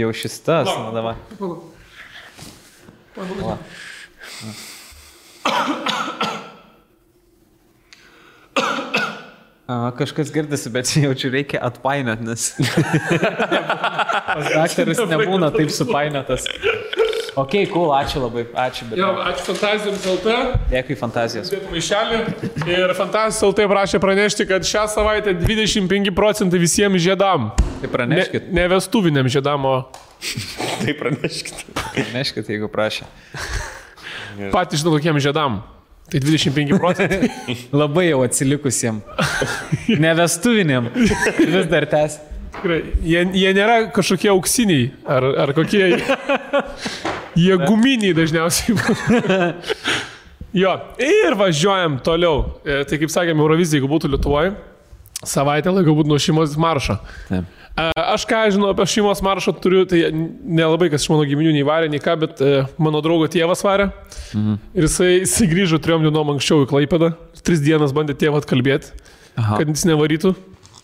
jau šis tas. Davai. Kažkas girdisi, bet jaučiu reikia atpainiot, nes daktaras nebūna taip supainiotas. Ok, cool, ačiū labai, ačiū.
Jo, ačiū Fantazijams LT.
Dėkui Fantazijos.
Maišelį. Ir Fantazijos LT prašė pranešti, kad šią savaitę 25% visiems žiedam.
Tai praneškit.
Ne vestuviniam žiedam, o...
Tai praneškit.
Praneškit, jeigu prašė.
Patys žinau, kokiem žiedam. Tai 25%.
Labai jau atsilikusiem. Nevestuviniam. Vis dar tęs.
Tikrai, jie nėra kažkokie auksiniai, ar kokie, jie guminiai dažniausiai. Jo, ir važiuojam toliau. Tai kaip sakėme, Eurovizija, jeigu būtų Lietuvoje, savaitę laiko būtų nuo šeimos maršo.
Taip.
Aš ką žinau apie šeimos maršą turiu, tai nelabai kas iš mano giminių nei varė, nei ką, bet mano draugo tėvas varė. Ir jisai grįžo 3 dienom anksčiau į Klaipėdą. 3 dienas bandė tėvą atkalbėti, kad jis nevarytų.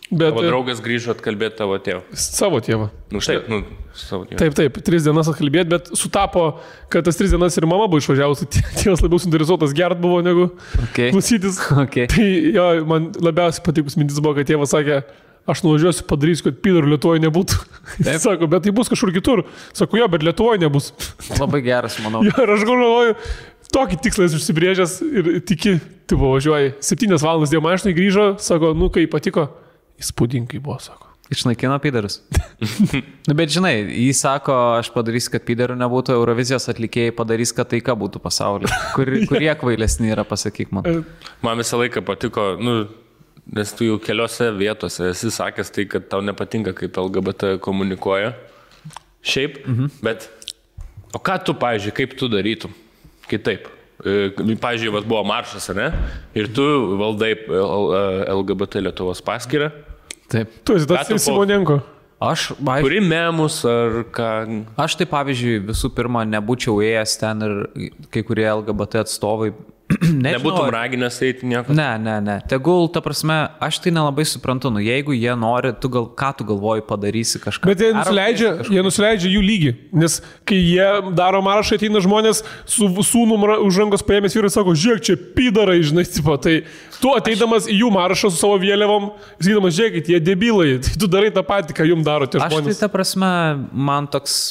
Bet,
tavo draugas grįžo atkalbėti tavo tėvą.
Savo tėvą.
Savo tėvą.
Taip, 3 dienas atkalbėti, bet sutapo, kad tas 3 dienas ir mama buvo išvažiavusi, tėvas labiau suinteresuotas gert buvo negu klausytis.
Okay.
Tai jo, man labiausiai patikus mintis buvo, kad tėvas sakė, aš nuvažiuosiu, padarysiu, kad pidorų Lietuvoje nebūtų. Sako, bet tai bus kažkur kitur. Sako, jo, bet Lietuvoje nebus.
Labai geras, manau.
Jo, ir aš galvoju, tokį tikslą esi užsibrėžęs ir tiki, tu važiuoji. 7 valandas dėl mašinai grįžo, sako, nu, kai patiko. Įspūdingai buvo, sako.
Išnaikino piderus. Bet žinai, jis sako, aš padarysiu, kad piderų nebūtų, Eurovizijos atlikėjai padarys, kad taika būtų pasaulyje. Kurie kvailesni yra, pasakyk man.
Man visą laiką patiko, nes tu jau keliose vietose esi sakęs tai, kad tau nepatinka, kaip LGBT komunikuoja. Šiaip, bet o ką tu, pavyzdžiui, kaip tu darytum kitaip? Pavyzdžiui, buvo maršas, ne? Ir tu valdai LGBT Lietuvos paskyrą.
Taip.
Tu esi tas Simonenko.
Kuri
memus ar ką?
Aš tai, pavyzdžiui, visų pirma, nebūčiau ėjęs ten ir kai kurie LGBT atstovai.
Nebūtum raginęs eiti nieko?
Ne. Tegul, ta prasme, aš tai nelabai suprantu, jeigu jie nori, ką tu galvoji padarysi kažką.
Bet jie nusileidžia jų lygį, nes kai jie daro maršą, ateina žmonės su sūnum už rankos paėmės vyrai, sako, žiūrėk, čia pidarai, žinai, tipo, tai tu ateidamas į jų maršą su savo vėliavom, sakydamas, žiūrėkit, jie debilai, tai tu darai tą patį, ką jums daro tie žmonės.
Aš tai, ta prasme, man toks...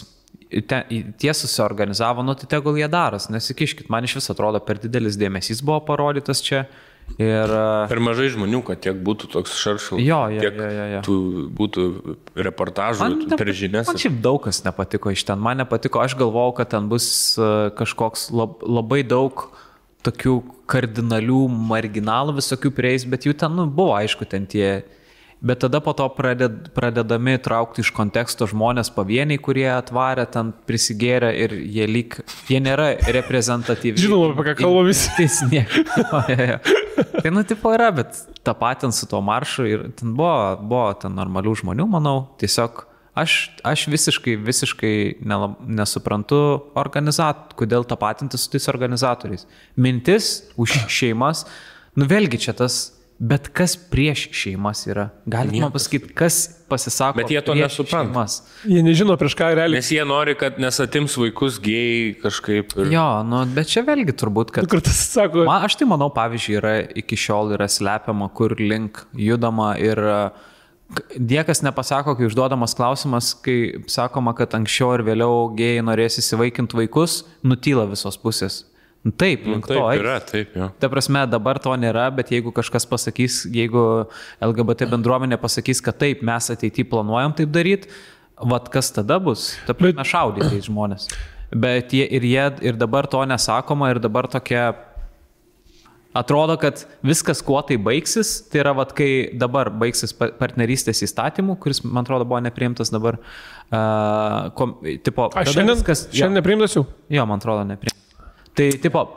Tie susiorganizavo, tai tegul jie daras, nesikiškit, man iš vis atrodo per didelis dėmesys buvo parodytas čia.
Per mažai žmonių, kad tiek būtų toks šaršalas, tiek būtų reportažų per žinias.
Man šiaip daug kas nepatiko iš ten, man nepatiko, aš galvojau, kad ten bus kažkoks labai daug tokių kardinalių marginalų visokių prieis, bet jų ten buvo aišku ten tie... Bet tada po to pradedami traukti iš konteksto žmonės pavieniai, kurie atvarė, ten prisigėrė ir jie nėra reprezentatyvi.
Žinoma, apie ką kalba visi.
Tai tipo yra, bet tą patį su tuo maršu ir ten buvo ten normalių žmonių, manau. Tiesiog aš visiškai nesuprantu kodėl tapatinti su tais organizatoriais. Mintis už šeimas, vėlgi čia tas... Bet kas prieš šeimas yra? Galite man pasakyti, kas pasisako
bet jie to nesupranta.
Šeimas?
Jie nežino prieš ką realiai.
Nes jie nori, kad nesatims vaikus gėjai kažkaip. Ir...
Jo, bet čia vėlgi turbūt, kad... Aš tai manau, pavyzdžiui, iki šiol yra slepiama, kur link judama ir niekas nepasako, kai užduodamas klausimas, kai sakoma, kad anksčiau ir vėliau gėjai norės įsivaikinti vaikus, nutyla visos pusės. Taip,
taip yra, taip, jo.
Ta prasme, dabar to nėra, bet jeigu kažkas pasakys, jeigu LGBT bendruomenė pasakys, kad taip, mes ateityje planuojam taip daryti, kas tada bus? Ta prasme, šaudyti žmonės. Bet ir dabar to nesakoma ir dabar tokia... Atrodo, kad viskas, kuo tai baigsis, tai yra, kai dabar baigsis partnerystės įstatymų, kuris, man atrodo, buvo nepriimtas dabar.
Šiandien nepriimtas jau?
Jo, man atrodo, nepriimtas. Tai,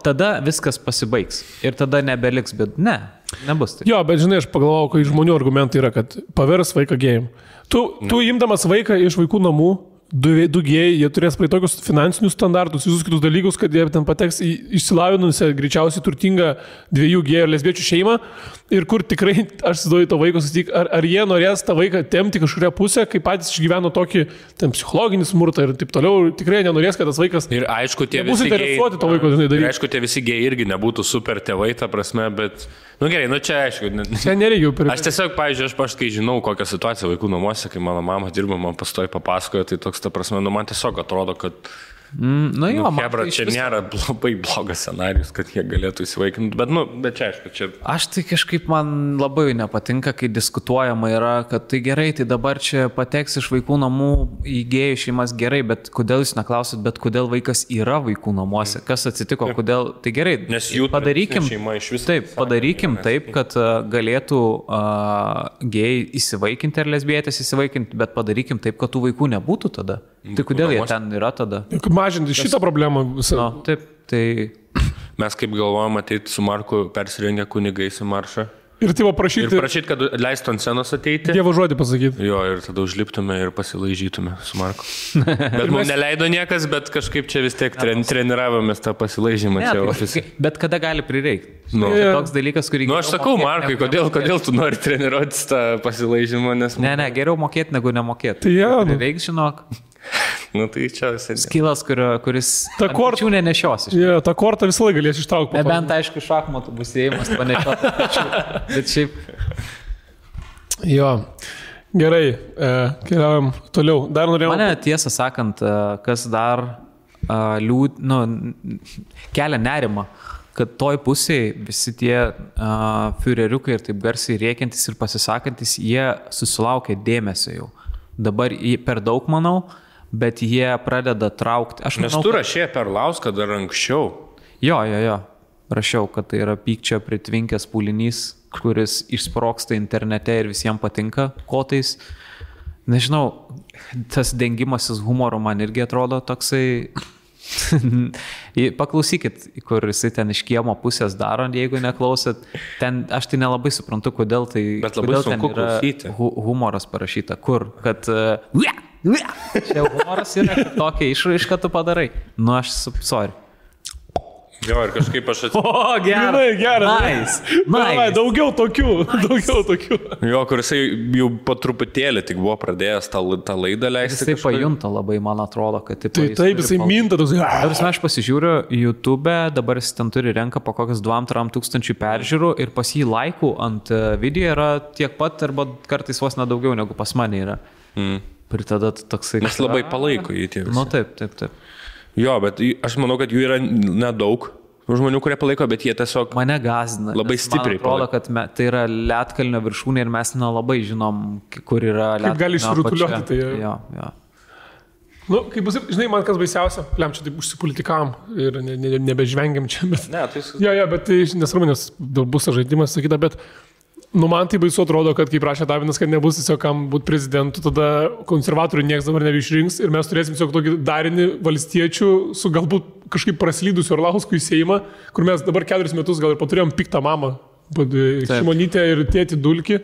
tada viskas pasibaigs ir tada nebeliks, bet nebus tai.
Jo, bet žinai, aš pagalvojau, kai žmonių argumentai yra, kad pavers vaiką gėjim. Tu imdamas vaiką iš vaikų namų, du gėjai, jie turės praeiti tokius finansinius standartus, visus kitus dalykus, kad jie ten pateks į išsilavinusią, greičiausiai turtingą 2 gėjų ir lesbiečių šeimą, ir kur tikrai, aš įsivaizduoju to vaiko susitik, ar jie norės tą vaiką tempti kažkuria pusę, kai patys išgyveno tokį psichologinį smurtą ir taip toliau, tikrai nenorės, kad tas vaikas...
Ir aišku, tie
visi interesuoti to vaiko daryti.
Ir aišku, tie visi gėjai irgi nebūtų super tėvai, ta prasme, bet... Gerai, čia aišku.
Čia nereikia per...
Aš tiesiog, pavyzdžiui, aš kai žinau, kokią situaciją vaikų namuose, kai mano mama dirba, man pastoji papasakojo, tai toks, ta prasme, man tiesiog atrodo, kad... Hebra, čia nėra labai blogas scenarius, kad jie galėtų įsivaikinti, bet čia aišku, čia...
Aš tai kažkaip man labai nepatinka, kai diskutuojama yra, kad tai gerai, tai dabar čia pateks iš vaikų namų į gėjų šeimas gerai, bet kodėl jūs neklausit, bet kodėl vaikas yra vaikų namuose, kas atsitiko, kodėl, tai gerai,
nes jų
padarykim,
šeima iš vis...
Taip, padarykim taip, kad galėtų gėjai įsivaikinti ar lesbietės įsivaikinti, bet padarykim taip, kad tų vaikų nebūtų tada. Tai kodėl jie ten yra tada?
Mažinti šitą problemą visą.
Taip, tai...
Mes kaip galvojam ateiti su Marku persirengę kunigais į maršą.
Ir tai prašyti...
Ir prašyti, kad leistų ant scenos ateiti.
Dievo žodį pasakyti.
Jo, ir tada užliptume ir pasilaižytume su Marku. Bet mums neleido niekas, bet kažkaip čia vis tiek treniravomės tą pasilaižymą čia ofise.
Bet kada gali prireikti? Toks dalykas, kurį...
Aš sakau, Markai, kodėl tu nori treniruotis tą pasilaižymą, nes...
Ne, geriau mokėti negu nemokėti.
Tai jau.
Prireiks, žinok.
Tai čia visai...
Skilas, kuris... Ta kortą nenešiosi.
Ta kortą visą laiką galės ištraukti.
Nebent, aišku, šachmatų bus įėjimas panešioti. Bet šiaip...
Jo. Gerai, keliaujam toliau. Dar norėjau...
Mane tiesą sakant, kas dar kelia nerimą, kad toj pusėje visi tie fiureriukai ir taip garsiai rėkiantis ir pasisakantis, jie susilaukia dėmesio jau. Dabar per daug, manau, bet jie pradeda traukti.
Nes tu rašė per Lauską dar anksčiau.
Jo. Rašiau, kad tai yra pykčio pritvinkęs pūlinys, kuris išsproksta internete ir visiems patinka kotais. Nežinau, tas dengimasis humoro man irgi atrodo toksai... Paklausykit, kur jisai ten iš kiemo pusės daro, jeigu neklausėt. Ten, aš tai nelabai suprantu, kodėl tai...
Bet labai sunku klausyti.
Humoras parašyta. Kur? Kad... Čia humoras yra tokia išraiška tu padarai. Aš sorry.
Jo, ir kažkaip aš
atsiprašau. Gerai. Nice.
Daugiau tokių.
Jo,
kur jisai jau po truputėlį tik buvo pradėjęs tą laidą leisti.
Jisai pajunta labai, man atrodo, kad
taip, jisai minta.
Aš pasižiūriu YouTube, dabar jis ten turi renka po kokias 2-3 tūkstančių peržiūrų ir pas jį laikų ant video yra tiek pat, arba kartais vos nedaugiau negu pas mane yra. Ir tada toksai...
Nes labai palaiko jį tie visi.
Taip.
Jo, bet aš manau, kad jų yra nedaug žmonių, kurie palaiko, bet jie tiesiog...
Mane gazina.
Labai stipriai
palaiko. Man atrodo, kad tai yra Lietkalnio viršūnė ir mes nelabai žinom, kur yra Lietkalnio.
Kaip gali išrutuliuoti tai.
Jo.
Kaip bus, žinai, man kas baisiausia, čia taip užsipolitikavom ir nebežvengiam čia, bet...
Ne, tai...
Jo, bet tai nesvarbu, nes bus žaidimas, sakyta, bet... man tai baisu atrodo, kad kaip rašė Davinas, kad nebus tiesiog kam būti prezidentu, tada konservatorių niekas dabar nebeišrinks ir mes turėsim tiesiog tokį darinį valstiečių su galbūt kažkaip praslydusiu Orlauskų į Seimą, kur mes dabar 4 metus gal ir paturėjom piktą mamą, Šimonytę ir tėtį Dulkį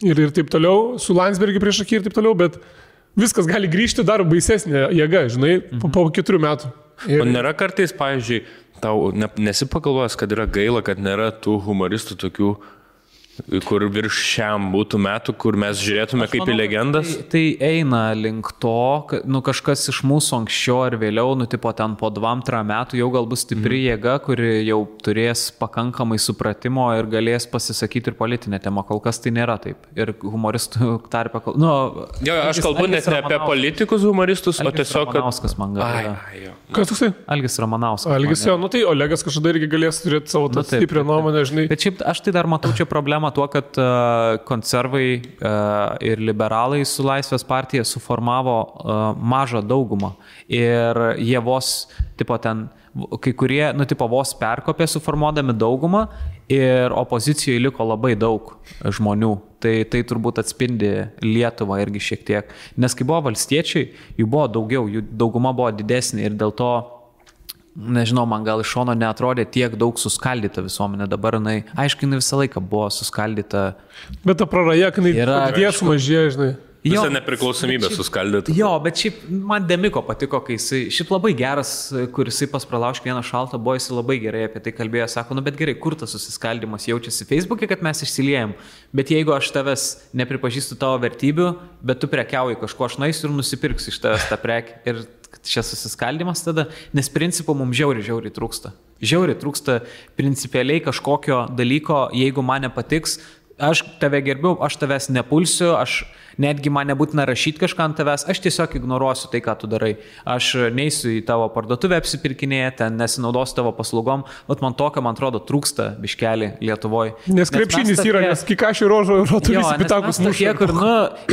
ir taip toliau, su Landsbergį prieš akį ir taip toliau, bet viskas gali grįžti dar baisesnė jėga, žinai, po 4 metų.
O nėra kartais, pavyzdžiui, tau nesipagalvojęs, kad yra gaila, kad nėra tų humoristų tokių, kur virš šiam būtų metų, kur mes žiūrėtume kaip į legendas?
Tai eina link to, kad kažkas iš mūsų anksčiau ar vėliau, tipo ten po 2-3 metų jau gal bus stipri jėga, kuri jau turės pakankamai supratimo ir galės pasisakyti ir politinę temą. Kol kas tai nėra taip. Ir humoristų tarpe...
Aš kalbu net ne apie politikus humoristus, o tiesiog...
Ramanauskas man gal.
Kas toksai?
Algis Ramanauskas.
Algis, tai Olegas kažkada irgi galės turėti savo stiprią nuomonę, žinai.
Bet šiaip aš tai dar matau čia problemą tuo, kad konservai ir liberalai su Laisvės partija suformavo mažą daugumą ir jie vos, kai kurie, vos perkopė suformuodami daugumą ir opozicijoje liko labai daug žmonių. Tai turbūt atspindi Lietuvą irgi šiek tiek. Nes kai buvo valstiečiai, jų buvo daugiau, jų dauguma buvo didesnė ir dėl to nežinau, man gal iš šono neatrodė tiek daug suskaldyta visuomenė. Dabar jinai visą laiką buvo suskaldyta.
Bet ta praraja, kai jie sumažėjo, žinai.
Visą nepriklausomybę suskaldyti.
Jo, bet šiaip man Demiko patiko, kai jisai, šiaip labai geras, kur jisai pas Pralauškį vieną šaltą buvo, jisai labai gerai apie tai kalbėjo, sako, nu bet gerai, kur tas susiskaldimas jaučiasi Facebook'e, kad mes išsiliejam, bet jeigu aš tavęs nepripažįstu tavo vertybių, bet tu prekiauji kažko, aš naisiu ir nusipirksiu iš tavęs tą prekį ir čia susiskaldimas tada, nes principo mums žiauriai trūksta. Žiauriai trūksta principialiai kažkokio dalyko, jeigu man nepatiks, aš tave gerbiu, aš tavęs nepulsiu, aš netgi man nebūtina rašyti kažką ant tavęs, aš tiesiog ignoruosiu tai, ką tu darai. Aš neisiu į tavo parduotuvę apsipirkinėje, ten nesinaudosiu tavo paslaugom, bet man tokio, man atrodo, trūksta biškelį Lietuvoje.
Nes krepšinis yra, nes kikašių rožo turisi pitakus mušė.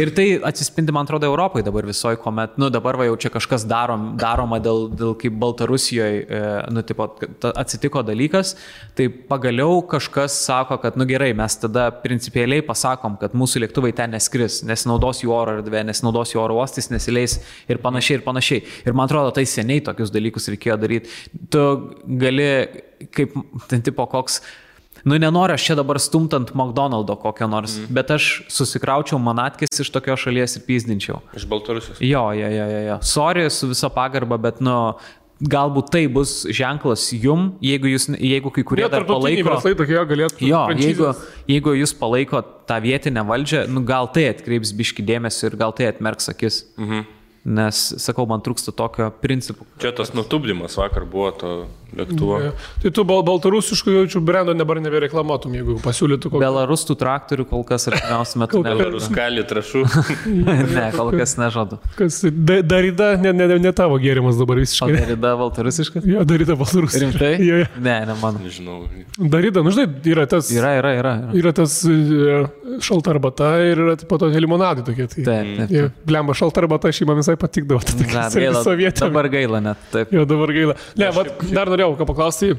Ir tai atsispindi, man atrodo, Europai dabar visoje, kuomet, dabar va jau čia kažkas daroma dėl kaip Baltarusijoje, atsitiko dalykas, tai pagaliau kažkas sako, kad, gerai, mes tada principialiai pasakom, kad mūsų lėktuvai ten neskris, nesinaudos jų oro erdvė, nesinaudos jų oro uostais, nesileis ir panašiai. Ir man atrodo, tai seniai tokius dalykus reikėjo daryti. Tu gali, kaip ten tipo koks, nenoriu aš čia dabar stumtant McDonald'o kokio nors, bet aš susikraučiau manatkės iš tokios šalies ir pyzdinčiau.
Iš Baltarusijos.
Jo. Sorry, su viso pagarba, bet galbūt tai bus ženklas jum, jeigu kai kurie dar palaiko. Jeigu jūs palaiko tą vietinę valdžią, gal tai atkreips biškį dėmesį ir gal tai atmerks akis. Nes, sakau, man trūksta tokio principų.
Čia tas nutupdymas vakar buvo to lėktuvo.
Tai tu baltarusiškų jaučių brendo dabar nebereklamuotum, jeigu pasiūlytų kokį.
Belarustų traktorių kol kas artimiausiu metu
Belaruskali trašų.
Ne, kol kas nežadu.
Kas, Darida, ne tavo gėrimas dabar visiškai.
O Darida baltarusiškas?
Jo, Darida baltarusiškas.
Rimtai?
Jo.
Ne, man.
Nežinau.
Darida, žinai, yra tas...
Yra
tas šalta arbata ir yra po to limonadai tokie.
Taip.
Blemba, šalta arbata šeima visai patikdavo.
Dabar gaila net. Taip.
Jo, dabar gaila. Ne, dar norėjau ką paklausti,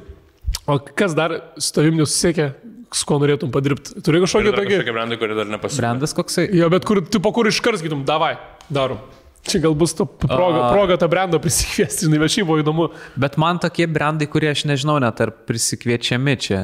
o kas dar su tavim nesusiekia, su ko norėtum padirbti? Turi kažkokį tokį...
Kažkokie brandai, kurie dar nepasiekia.
Brandas koksai?
Jo, bet kur iškart sakytum, davai, darom. Čia gal bus proga tą brandą prisikviesti, žinai, bet šiaip buvo įdomu.
Bet man tokie brandai, kurie aš nežinau net ar prisikviečiami čia.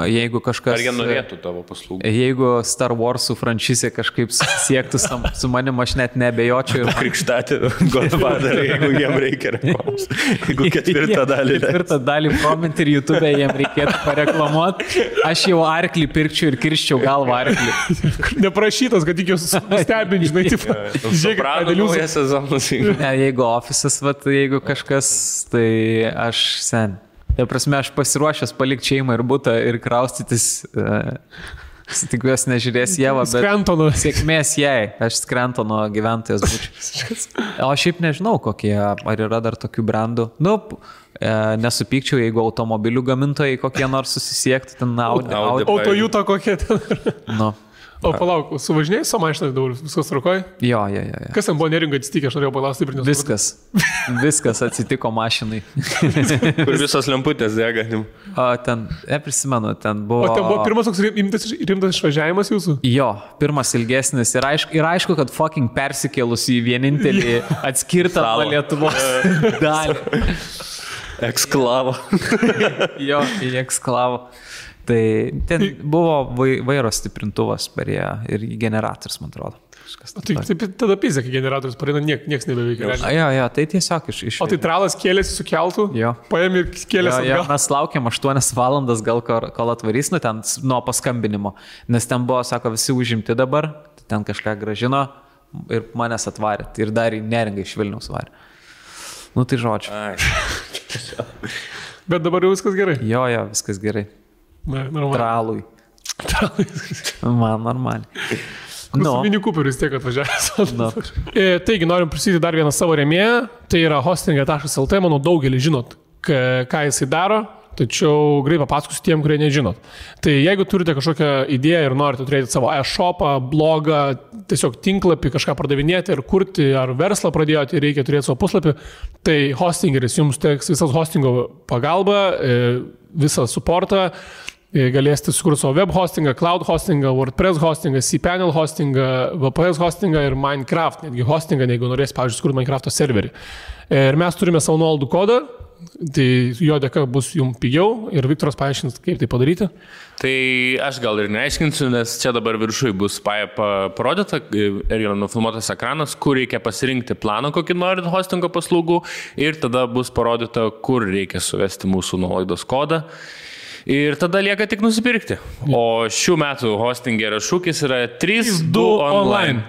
Jeigu kažkas...
Ar jie norėtų tavo paslaugų?
Jeigu Star Warsų franšizė kažkaip siektų su manim, aš net nebejočiau. Ir
krikštatį Godfather, jeigu jiem reikia reklamos. Jeigu ketvirtą dalį.
Ketvirtą dalį promint ir YouTube jiem reikėtų pareklamuoti. Aš jau arklį pirkčiau ir kirščiau galvą arklį.
Neprašytas, kad tik jūs stebint, žinai,
žiūrėk,
ne, jeigu ofisas, jeigu kažkas, tai aš sen. Tai prasme, aš pasiruošęs palikti šeimą ir butą ir kraustytis. Tikiuosi nežiūrės Ieva, bet sėkmės jai. Aš Skrentono gyventojas būčiau. O šiaip nežinau, kokie, ar yra dar tokių brandų. Nesupykčiau, jeigu automobilių gamintojai kokie nors susisiektų, ten
Autojuto kokie ten. O palauk, suvažinėjai su mašinai dabar, viskas trukoja?
Jo.
Kas ten buvo neringa atsitikė, aš norėjau paklausti ir
nesupratau. Viskas atsitiko mašinai.
Kur visos lemputės dega.
O ten, prisimenu, ten buvo...
O ten buvo pirmas toks rimtas išvažiavimas jūsų?
Jo, pirmas ilgesnis ir aišku, kad fucking persikėlus į vienintelį atskirtą nuo Lietuvos dalį.
Eksklavo.
Jo, į eksklavo. Tai ten buvo vairo stiprintuvas per ją ir generatorius, man atrodo.
Taip, tada pizė, kai generatorius pareina, nieks nebeveikia.
Jo, tai tiesiog iš...
O tai tralas kėlėsi su keltu?
Jo.
Paėm ir kėlėsi atgal?
Jo, mes laukiam 8 valandas gal kol atvarys, ten nuo paskambinimo. Nes ten buvo, sako, visi užimti dabar, ten kažką gražino ir manęs atvarė. Ir dar į Neringą iš Vilniaus varė. Tai žodžiu.
Bet dabar jau viskas gerai?
Jo, viskas gerai. Tralui. Man normaliai.
Mini Cooperis tiek atvažiavęs. Taigi, norim prisidėti dar vieną savo rėmėją. Tai yra hostinga.lt. Manau, daugelį žinot, ką jisai daro. Tačiau greit papasakosiu tiem, kurie nežinot. Tai jeigu turite kažkokią idėją ir norite turėti savo e-shopą, blogą, tiesiog tinklapį, kažką pardavinėti ir kurti, ar verslą pradėjote ir reikia turėti savo puslapį, tai hostingeris jums teks visas hostingo pagalba, visą supportą. Galėsite sukurti savo web hostingą, cloud hostingą, WordPress hostingą, cPanel hostingą, VPS hostingą ir Minecraft, netgi hostingą, jeigu norėsite, pavyzdžiui, sukurti Minecraft'o serverį. Ir mes turime savo nuolaidų kodą, tai jo dėka bus jums pigiau ir Viktoras paaiškins, kaip tai padaryti.
Tai aš gal ir neaiškinsiu, nes čia dabar viršui bus parodyta ir yra nufilmuotas ekranas, kur reikia pasirinkti planą, kokį norit hostingo paslaugų ir tada bus parodyta, kur reikia suvesti mūsų nuolaidos kodą. Ir tada lieka tik nusipirkti. O šių metų hostingerio šūkis yra 3-2 online.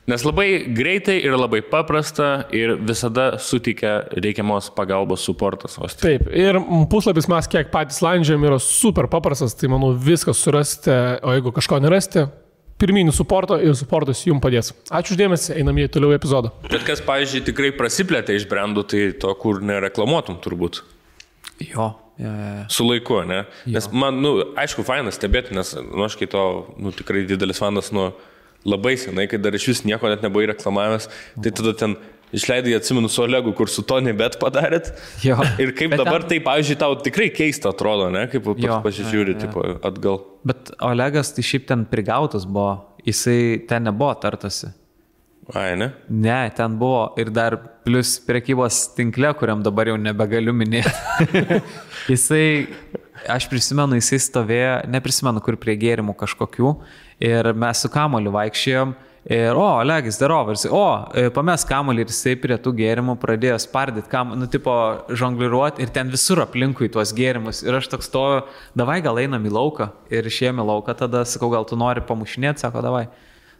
Nes labai greitai ir labai paprasta ir visada suteikia reikiamos pagalbos suportas hostingas.
Taip, ir puslapis mes kiek patys landžiam yra super paprastas, tai manau viskas surasite, o jeigu kažko nerasite, pirminį suportą ir suportas jums padės. Ačiū uždėmesi, einam į toliau epizodą.
Bet kas, pavyzdžiui, tikrai prasiplėtė iš brandų, tai to, kur nereklamuotum turbūt.
Jo.
Su laiku, ne? Nes man, aišku, fainas stebėti, nes aš kai to, tikrai didelis fanas labai senai, kai dar iš vis nieko net nebuvo reklamavęs, tai tada ten išleidai, atsimenu su Olegu, kur su Tony Bet padarėt. Jo. Ir kaip bet dabar tai, pavyzdžiui, tau tikrai keista atrodo, ne? Kaip pasižiūri tipo, atgal.
Bet Olegas tai šiaip ten prigautas buvo, jisai ten nebuvo tartasi.
Ai, ne?
Ne, ten buvo ir dar plus prekybos tinkle, kuriam dabar jau nebegaliu minėti. Aš prisimenu, jisai stovėjo, neprisimenu, kur prie gėrimų kažkokių ir mes su kamoliu vaikščiojom ir, Olegis darovas, pames kamolį ir jisai prie tų gėrimų pradėjo spardyti, žongliruoti ir ten visur aplinkui tuos gėrimus ir aš toks stoju, davai gal einam į lauką ir išėjom į lauką, tada sakau, gal tu nori pamušinėti, sako, davai.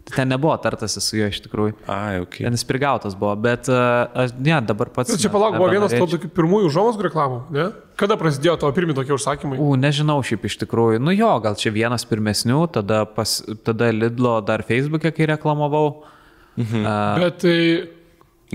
Tai ten nebuvo tartasi su juo iš tikrųjų.
Ai, okay.
Ten jis prigautas buvo, bet dabar pats...
Čia palauk, buvo vienas to tokių pirmųjų užuomazgų reklamų, ne? Kada prasidėjo tavo pirmi tokie užsakymai?
Nežinau šiaip iš tikrųjų. Gal čia vienas pirmesnių, tada Lidlo dar Facebook'e, kai reklamavau.
Bet tai...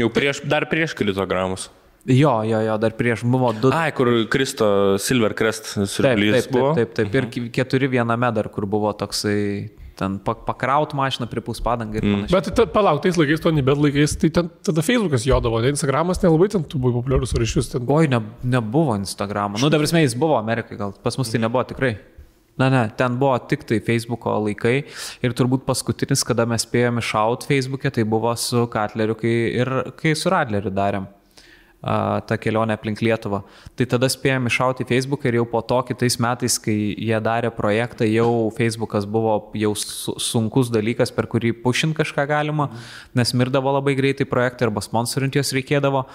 Jau dar prieš kilitogramus.
Jo, dar prieš buvo 2.
Ai, kur Kristo Silver Crest siurblys buvo.
Taip. Ir 4 viename dar, kur buvo toksai... Ten pakraut mašiną pripūs padangą ir panašiai.
Bet palauk, tais laikais, to nebet laikais, tai ten tada Facebookas jodavo, ne Instagramas nelabai ten tu buvai populiarus ar iš vis ten.
Nebuvo Instagramo. Dabar jis buvo Amerikai, gal pas mus tai nebuvo tikrai. Ne, ten buvo tik tai Facebooko laikai ir turbūt paskutinis, kada mes spėjome šaut Facebook'e, tai buvo su Katleriu, kai su Radleriu darėm tą kelionę aplink Lietuvą. Tai tada spėjom iššauti Facebooką ir jau po to kitais metais, kai jie darė projektą, jau Facebookas buvo jau sunkus dalykas, per kurį pušint kažką galima, nes mirdavo labai greitai projektai arba sponsorint jos reikėdavo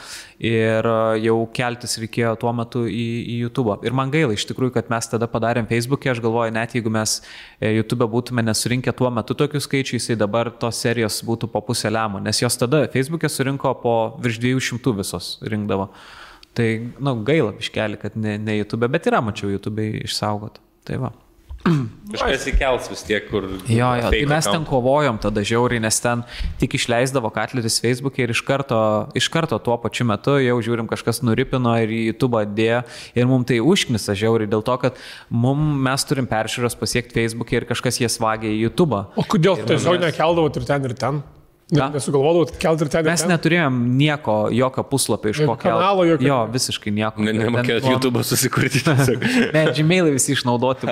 ir jau keltis reikėjo tuo metu į YouTube. Ir man gaila iš tikrųjų, kad mes tada padarėm Facebook'e, aš galvoju, net jeigu mes YouTube būtume nesurinkę tuo metu tokių skaičių, jisai dabar tos serijos būtų po pusę lemo, nes jos tada Facebook'e surinko po virš 200 visos rinkdavo. Tai, gaila biškelį, kad ne YouTube, bet yra, mačiau, YouTube išsaugot. Tai va.
Kažkas įkels vis tiek, kur...
Jo, tai mes ten kovojom tada žiauriai, nes ten tik išleisdavo Katleris Facebook'e ir iš karto tuo pačiu metu jau žiūrim, kažkas nuripino ir į YouTube dėjo ir mums tai užknisa žiauriai dėl to, kad mes turim peržiūros pasiekti Facebook'e ir kažkas jas vagia į YouTube.
O kodėl tiesiog nekeldavot ir ten ir ten? Nesugalvodavot kelti ir ten.
Mes neturėjom jokio puslapio iš ko kelti. Jo, visiškai nieko.
Nemokėjot YouTube susikurti.
Ne, Gmailai visi išnaudoti.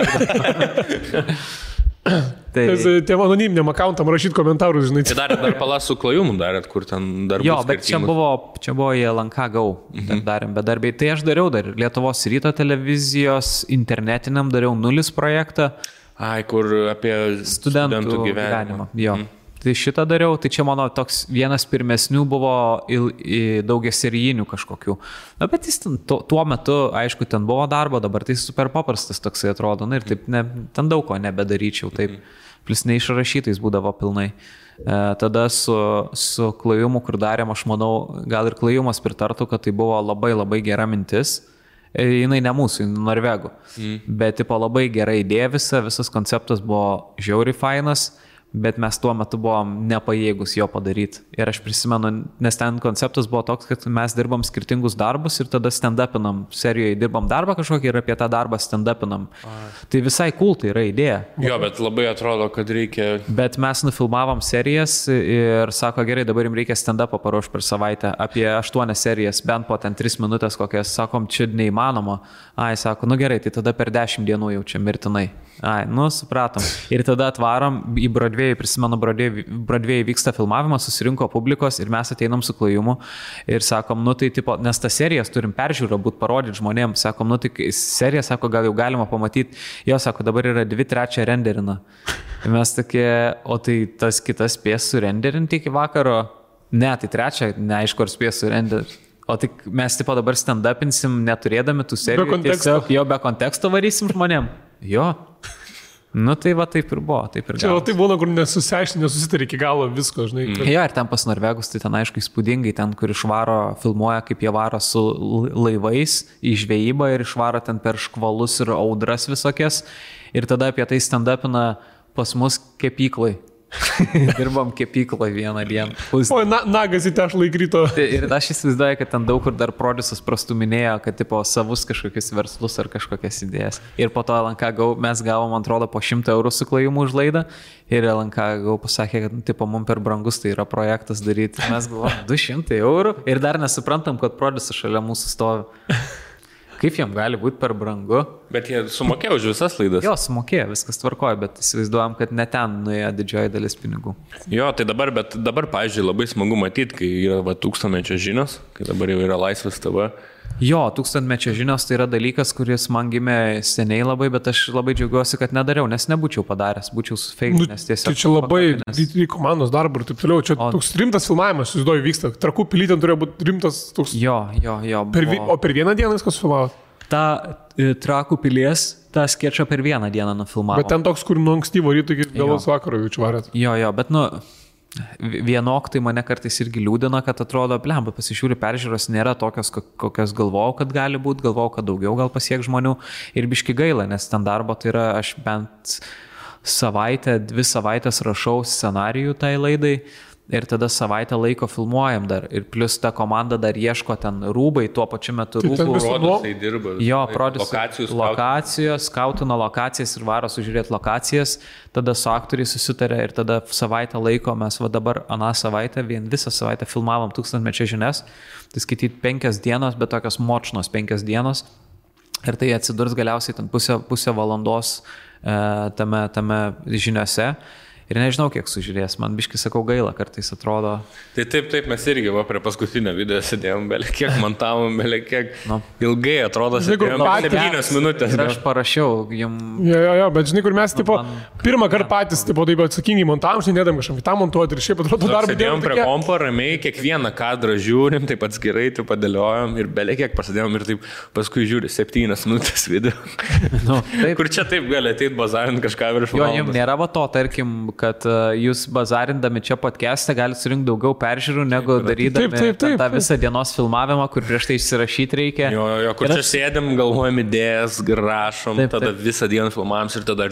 Tiem anoniminiam accountam rašyti komentarus, žinai.
Tai dar palasų klajumų darėt, kur ten dar
jo, bet čia buvo į LNK Go darėm bedarbiai. Tai aš dariau dar Lietuvos ryto televizijos internetiniam dariau 0 projektą.
Ai, kur apie studentų gyvenimą.
Jo. Tai šitą dariau, tai čia mano toks vienas pirmesnių buvo daugiaserijinių kažkokių. Bet jis tuo metu, aišku, ten buvo darbo, dabar tai super paprastas toksai atrodo. Ir taip, ten daug ko nebedaryčiau, taip. Plus neišrašytais būdavo pilnai. Tada su klajumu, kur darėm, aš manau, gal ir klajumas pritartų, kad tai buvo labai labai gera mintis. Jinai ne mūsų, norvegų. Bet tipo labai gera idėja visas konceptas buvo žiauriai fainas. Bet mes tuo metu buvom nepajėgus jo padaryti. Ir aš prisimenu, nes ten konceptas buvo toks, kad mes dirbam skirtingus darbus ir tada stand-upinam. Serijoje dirbam darbą kažkokį ir apie tą darbą stand-upinam. Tai visai cool, tai yra idėja.
Jo, bet labai atrodo, kad reikia...
Bet mes nufilmavom serijas ir sako, gerai, dabar jums reikia stand-upą paruošti per savaitę. Apie 8 serijas, bent po ten 3 minutės kokias. Sakom, čia neįmanoma. Sako, gerai, tai tada per 10 dienų jau čia mirtinai. Supratom. Ir tada atvarom į Broadway Broadway, prisimenu, Broadway vyksta filmavimas, susirinko publikos ir mes ateinam su Klajumu ir sakom, nu tai tipo, nes tas serijas turim peržiūrą, būt parodyti žmonėms, sakom, nu tai serija, sako, gal jau galima pamatyti, jo, sako, dabar yra 2/3 renderina. Ir mes tokie, o tai tas kitas spės surenderinti iki vakaro, ne, tai 3, neaišku, ar spės surenderinti. O tik mes tipo dabar stand-upinsim, neturėdami tų serijų. Tiesiog jo be konteksto varysim žmonėm. Jo. Nu tai va taip ir buvo, taip ir
čia tai būna, kur nesusitari iki galo visko, žinai.
Jo, ir ten pas norvegus, tai ten aišku įspūdingai, ten kur išvaro, filmuoja, kaip jie varo su laivais į žvejybą ir išvaro ten per škvalus ir audras visokias. Ir tada apie tai stand-upina pas mus kepyklai. Dirbam kepyklą vieną dieną.
Oi, nagas į tešlą įkrito.
Ir aš įsivaizduoju, kad ten daug kur dar produsas prastuminėjo, kad tipo savus kažkokius verslus ar kažkokias idėjas. Ir po to LNK mes gavom, man atrodo, po 100 eurų su Klajumu už laidą. Ir LNK pasakė, kad tipo mums per brangus tai yra projektas daryti. Mes galvom 200 eurų ir dar nesuprantam, kad produsas šalia mūsų stovi. Kaip jam gali būti per brangu?
Bet jie sumokėjo už visas laidas.
Jo, sumokėjo, viskas tvarkoja, bet įsivaizduojam, kad ne ten nuėjo didžioji dalis pinigų.
Jo, tai dabar, pavyzdžiui, labai smagu matyti, kai yra 1000-mečio žinios, kai dabar jau yra Laisvės TV.
Jo, 1000-mečio žinios tai yra dalykas, kuris man gimė seniai labai, bet aš labai džiaugiuosi, kad nedariau, nes nebūčiau padaręs, būčiau sufeikinęs tiesiog.
Tai čia labai komandos darbų ir taip toliau, čia toks rimtas filmavimas, įsivaizduoju, vyksta. Trakų pilyje ten turėjo būti rimtas toks.
Jo.
O per vieną dieną viskas filmavo?
Ta Trakų pilies, tą skečą per vieną dieną nufilmavo.
Bet ten toks, kur nuo ankstyvo ryto iki vėlos vakaro jaučiu varėt.
Jo, bet vienok tai mane kartais irgi liūdina, kad atrodo, blemba, pasižiūri, peržiūros nėra tokios, kokios galvojau, kad gali būti, galvojau, kad daugiau gal pasiek žmonių ir biški gaila, nes ten darbo tai yra, aš bent 2 savaitės rašau scenarijų tai laidai ir tada savaitę laiko filmuojam dar ir plus ta komanda dar ieško ten rūbai, tuo pačiu metu rūbų.
Produsai dirba.
Jo, lokacijos, skautina lokacijas ir varo sužiūrėti lokacijas, tada su aktoriai susitarė ir tada savaitę laiko mes dabar aną savaitę, visą savaitę filmavom 1000-mečio žinias, tai skaityti 5 dienos, bet tokios močnos 5 dienos ir tai atsidurs galiausiai ten pusę valandos tame žiniose. Ir nežinau, kiek sužiūrės, man biškai sakau gaila, kartais atrodo.
Tai taip, mes irgi prie paskutinio video sėdėjom, belė kiek montavom, belė kiek ilgai atrodo, sėdėjom 7 minutės.
Ir aš parašiau jums.
Jo, bet žinai, kur mes pirmą kartą patys taip atsakingai montavom, nedam kažkam kitam montuoti ir šiaip atrodo darbą.
Sėdėjom prie kompo, ramiai, kiekvieną kadrą žiūrim, taip atskirai, taip padėliojom ir belė kiek pasidėjom ir taip paskui žiūri 7 minutės video. Kur čia taip gali ateiti bazarint kažką virš valandos.
Jo, jums nėra to, tarkim, kad jūs bazarindami čia podcast'e galite surinkti daugiau peržiūrų, negu darydami tą visą dienos filmavimą, kur prieš tai išsirašyti reikia.
Jo, kur čia sėdėm, galvojam idėjas, rašom, tada visą dieną filmavom ir tada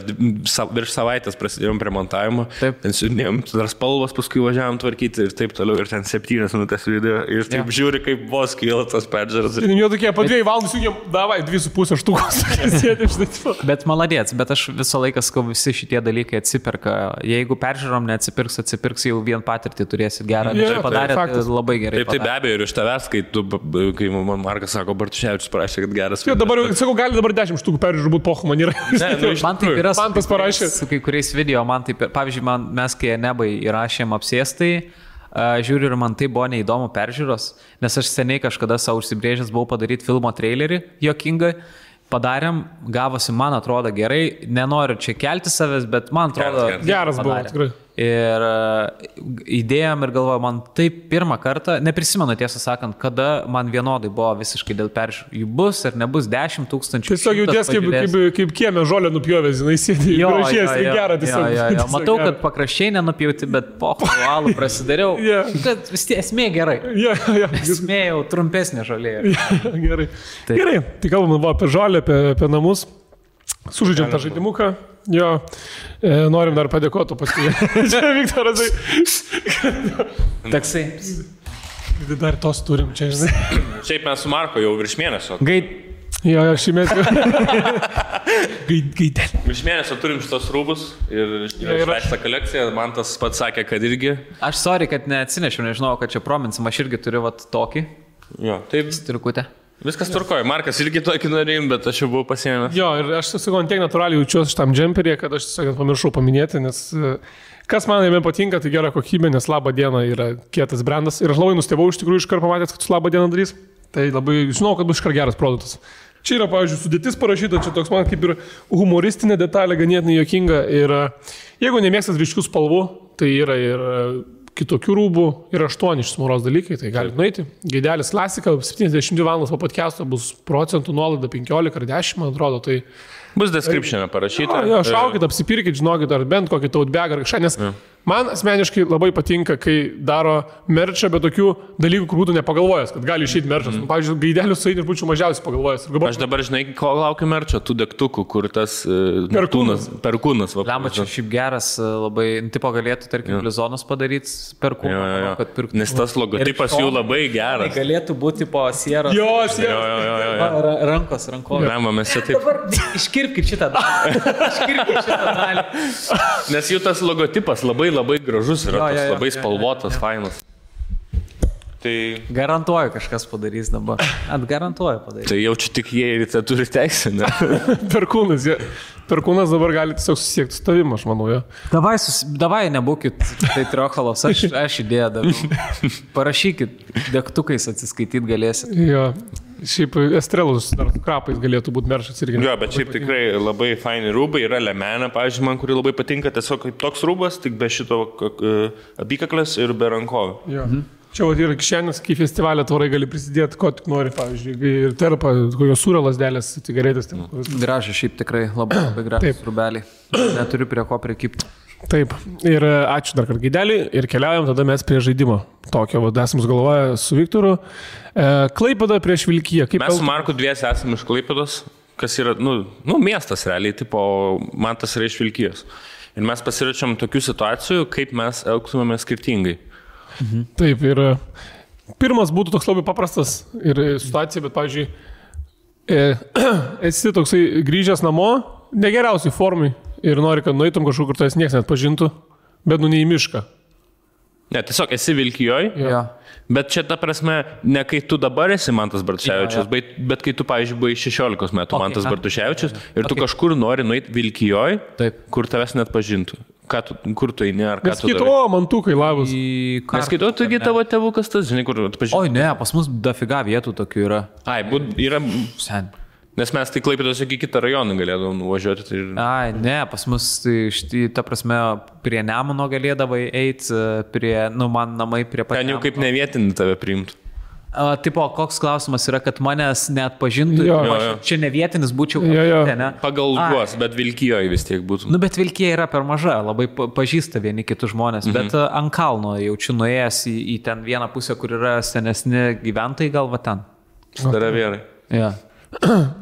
virš savaitės prasidėjom prie montavimo. Ten siūdėjom, dar spalvos, paskui važiavom tvarkyti ir taip toliau. Ir ten 7 minutės video ir taip žiūri, kaip vos kyla tas peržiūras.
Ir jau tokie po 2 valandų siūdėjom, davai 2,5 štukos.
Bet maladėts, bet aš visą laiką sakau, visi šitie dalykai atsiperka. Jeigu peržiūrom atsipirks jau vien patirtį turėsit gerą. Padarėt labai gerai.
Taip, be abejo, ir iš tavęs, kai man Markas sako, Bartuševičius parašė, kad geras.
Jo, dabar, sakau, gali dabar 10 štukų peržiūrų būt pochu, man yra.
Man taip yra
su
kai kuriais video, man taip, pavyzdžiui, mes kai Nebai įrašėm apsėstai, žiūriu ir man tai buvo neįdomu peržiūros, nes aš seniai kažkada savo užsibrėžęs buvau padaryti filmo trailerį, juokingą. Padarėm, gavosi, man atrodo gerai, nenoriu čia kelti savęs, bet man atrodo
geras buvo, tikrai.
Ir įdėjom ir galvoju, man taip pirmą kartą, neprisimenu tiesą sakant, kada man vienodai buvo visiškai dėl peržiūrų. Jų bus ar nebus 10 000.
Tiesiog jauties kaip kieme žolę nupjovęs, jinai sėdė, gražies, tai gera tiesiog.
Matau, kad pakraščiai nenupjauti, bet pochvalų prasidariau, kad vis tiek esmė gerai. Esmė jau trumpesnė žolė.
Gerai, tai kalbam apie žolę, apie namus. Sužaidžiam tą žaidimuką. Jo, norim dar padėkoti paskui. Čia Viktoras.
Taksai.
Dar tos turim čia, žinai.
Šiaip mes su Marko jau virš mėnesio.
Jo, šį mėnesį. Gaidėl.
Virš mėnesio turim šitos rūbus ir išleistą kolekciją. Man tas pats sakė, kad irgi.
Aš sorry, kad neatsinešiau, nežinau, kad čia prominsim. Aš irgi turiu tokį.
Jo, taip.
Striukutę.
Viskas tvarkoja. Markas irgi tokį norėjim, bet aš jau buvau pasiėmęs.
Jo, ir aš tiesiog tiek natūraliai jaučiuosi šitam džemperį, kad aš tiesiog pamiršau paminėti, nes kas man jame patinka, tai gera kokybė, nes Labą dieną yra kietas brandas. Ir aš labai nustebau iš tikrųjų iškart pamatęs, kad su Labą dieną darys. Tai labai žinau, kad bus iškart geras produktas. Čia yra, pavyzdžiui, sudėtis parašyta, čia toks man kaip ir humoristinė detalė, ganėtinai juokinga. Ir jeigu nemėgstat ryškių spalvų, tai yra ir kitokių rūbų, yra 8 išsmuros dalykai, tai galite nueiti. Gaidelis klasika, 72 valandas po podcast'o bus procentų nuolaida 15 ar 10, man atrodo. Tai
bus description'e parašyta.
Jo, šaukit, apsipirkit, žinokit, ar bent kokį tautbegą ar kažką, nes man asmeniškai labai patinka, kai daro merčą, bet tokių dalykų, kur būtų nepagalvojęs, kad gali išeiti merčas. Pavyzdžiui, gaidelius su eidiniu būčiau mažiausiai pagalvojęs.
Aš dabar, žinai, ko laukiu merčio, tų degtukų, kur tas perkūnas.
Lemba, čia šiaip geras, labai, tipo galėtų, tarkim, Blizonas padaryti perkūną.
Nes tas logotipas jų labai geras.
Galėtų būti po sieros.
Jo.
Rankos.
Lemba, mes čia taip.
Dabar iškirpkit šitą dalį.
Nes jų tas logotipas labai gražus yra, labai spalvotas, fainas. Tai
garantuoju, kažkas padarys dabar. Garantuoju padarys.
Tai jaučiu tik jie ir tai turi teisę, ne?
Perkūnas dabar gali tiesiog susiekti su tavim, aš manau, jo.
Davai nebūkit tai triochalos, aš idėją daviau. Parašykit, degtukais atsiskaityti galėsit.
Jo. Šiaip Estrelus dar krapais galėtų būti meršas irgi.
Jo, bet šiaip tikrai labai faini rūbai, yra lemenė, pavyzdžiui, man, kuri labai patinka, tiesiog kaip toks rūbas, tik be šito apykaklės ir be rankovių.
Čia yra kišenės, kai festivalio tvorai gali prisidėti, ko tik nori, pavyzdžiui, ir terpa, kokios sūrio lasdelės, cigaretės.
Gražiai, šiaip tikrai labai gražiai rūbeliai. Neturiu prie ko prikipti.
Taip, ir ačiū dar kartą Gaidelį ir keliaujam tada mes prie žaidimo. Tokio, esam sugalvoję su Viktoru. Klaipėda prieš Vilkiją.
Mes su Marku dviesi esame iš Klaipėdos, kas yra, miestas realiai, tipo, man tas yra iš Vilkijos. Ir mes pasiračiam tokių situacijų, kaip mes elgtumėme skirtingai.
Taip, ir pirmas būtų toks labai paprastas ir situacija, bet, pavyzdžiui, esi toksai grįžęs namo, negeriausiai formai ir nori, kad nueitum kažkur, kur tas niekas net pažintų, bet ne į mišką.
Ne, tiesiog esi Vilkijoj, bet čia ta prasme, ne kai tu dabar esi Mantas Bartuševičius, bet kai tu, pavyzdžiui, buvai 16 metų Mantas Bartuševičius ir tu kažkur nori nueiti Vilkijoj, kur tavęs net pažintų. Kur tu eini, ar ką tu darai?
Neskaito, mantukai labas.
Neskaito, taigi tavo tėvukas tas, žinai, kur atpažinti.
Oi, ne, pas mus dafiga vietų tokių yra.
Yra. Nes mes tai Klaipėdos iki kitą rajoną galėdavom nuvažiuoti.
Ne, pas mus, ta prasme, prie Nemuno galėdavai eiti, man namai prie pat.
Ten jau kaip nevietinį tave priimtų.
Tipo, koks klausimas yra, kad manęs net pažintų, čia ne vietinis būčiau. Ne?
Pagal juos, bet Vilkijoje vis tiek būtų.
Bet Vilkija yra per maža, labai pažįsta vieni kitus žmonės, bet ant kalno jaučiu nuėjęs į ten vieną pusę, kur yra senesni gyventojai, gal va ten.
Staravėrai.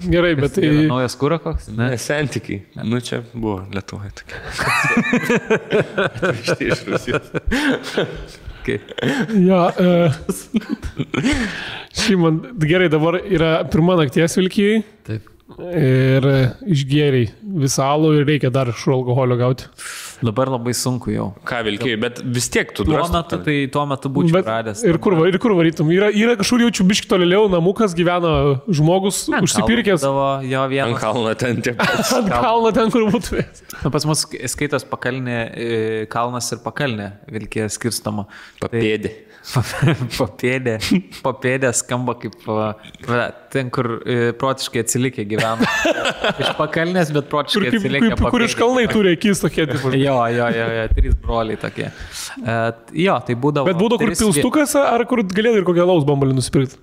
Gerai, bet tai...
Naujas kūra koks?
Ne, santykiai. Čia buvo Lietuvoje tokia. Iš Rusijos.
Šimon, gerai, dabar yra pirma nakties Vilkijai.
Taip.
Ir išgėriai visą alų ir reikia dar iš alkoholio gauti.
Dabar labai sunku jau.
Ką Vilkijai, bet vis tiek tu
tuo metu būčiau radęs.
Ir kur varytum? Yra kažkur jaučiu biški tolėliau, namukas gyvena žmogus, užsipirkęs.
Ant kalno ten tiek.
Ant kalno ten, kur būtų.
Pas mus skaitas pakalnė, kalnas ir pakalnė Vilkija skirstama.
Papėdė.
Papėdė skamba kaip ten, kur protiškai atsilikę gyvena. Iš pakalnės, bet protiškai atsilikę papėdė.
Kur iš kalnai turi akis tokie.
Jo, 3 broliai tokie. Tai būdavo...
Bet būdavo kur pilstukas, ar kur galėdai ir kokią alaus bambalį nusipirkti?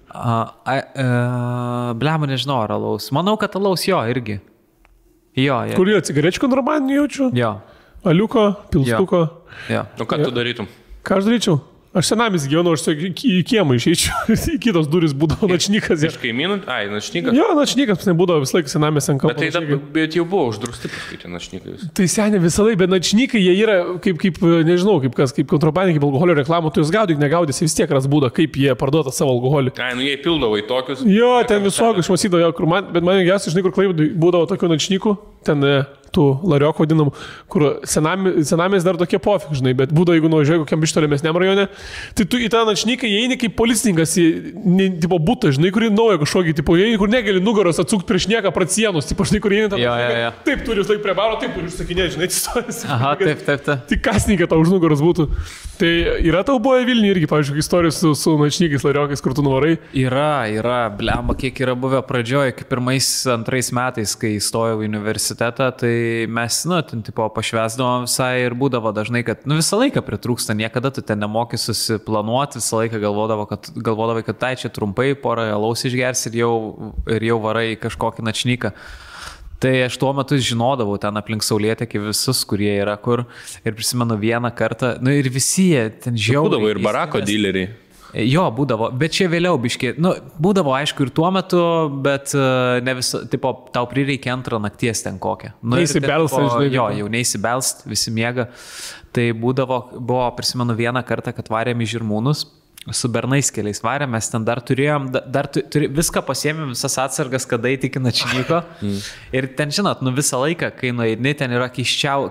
Blema, nežinau, ar alaus. Manau, kad alaus irgi.
Kur jo, cigarečių kontrabandinių jaučiu?
Jo.
Aliuko, pilstuko.
O ką tu darytum?
Ką aš daryčiau? Aš senamis gyvenau, aš į kiemą išeičiau, į kitos duris būdavo načnykas.
Iš kaimynų? Načnykas?
Jo, načnykas nebūdavo visą laiką senamis ant kampo.
Bet jau buvo uždrausti paskaitė načnykai.
Tai seniai visą laiką, bet načnykai jie yra kaip nežinau, kaip kontrabandiniai, kaip alkoholio reklamų, tu jūs gaudyk, negaudysi, vis tiek ras būdą, kaip jie parduota savo alkoholį.
Jie pildavo į tokius.
Jo, ten visokius, aš matydavau, bet man geriausiai, žinai, kur Klaipėdoj būdavo tokių načnykų, ten tų lariokų vadinamų, kur senamės dar tokie pofik, žinai, bet būdavo, jeigu nuvažiuoji kokiam bištolimesniam rajone, tai tu į tą načnyką įeini kaip policininkas į tipo butą, žinai, kurį naują kažkokį, tipo, įeini, kur negali nugaros atsukti prieš nieką pratsienus, tipo, žinai, kur įeini tą načnyką, taip turi laik prie baro, taip turi užsakinėti, žinai, atsistojęs.
Aha, taip.
Tik kasninkai tau už nugaros būtų. Tai yra tau buvo Vilniuje irgi, pavyzdžiui, istorijos su načnykais, lariokais, kur tu nuvarai?
Yra, blemba, kiek yra buvę pradžioje, kaip 1-2 metais, kai įstojau į universitetą, tai mes, ten tipo pašvesdavom visai ir būdavo dažnai, kad, visą laiką pritrūksta, niekada tu ten nemoki susiplanuoti, visą laiką galvodavai, kad tai čia trumpai, porą alaus išgers ir jau varai kažkokį načnyką. Tai aš tuo metu žinodavau ten aplink Saulėtekį visus, kurie yra kur. Ir prisimenu vieną kartą, ir visi jie ten žiauriai.
Būdavo ir barako dileriai.
Jo, būdavo, bet čia vėliau biškiai. Būdavo aišku ir tuo metu, bet ne visą, tipo, tau prireikia antrą nakties ten kokią.
Neįsibelst, žinai.
Jo, jau neįsibelst, visi miega. Tai buvo, prisimenu vieną kartą, kad varėm į Žirmūnus. Su bernais keliais varėm, mes ten dar turėjom, viską pasiėmėm, visas atsargas, kada įtikina čnyko. Ir ten, žinot, visą laiką, kai nueini, ten yra keiščiau.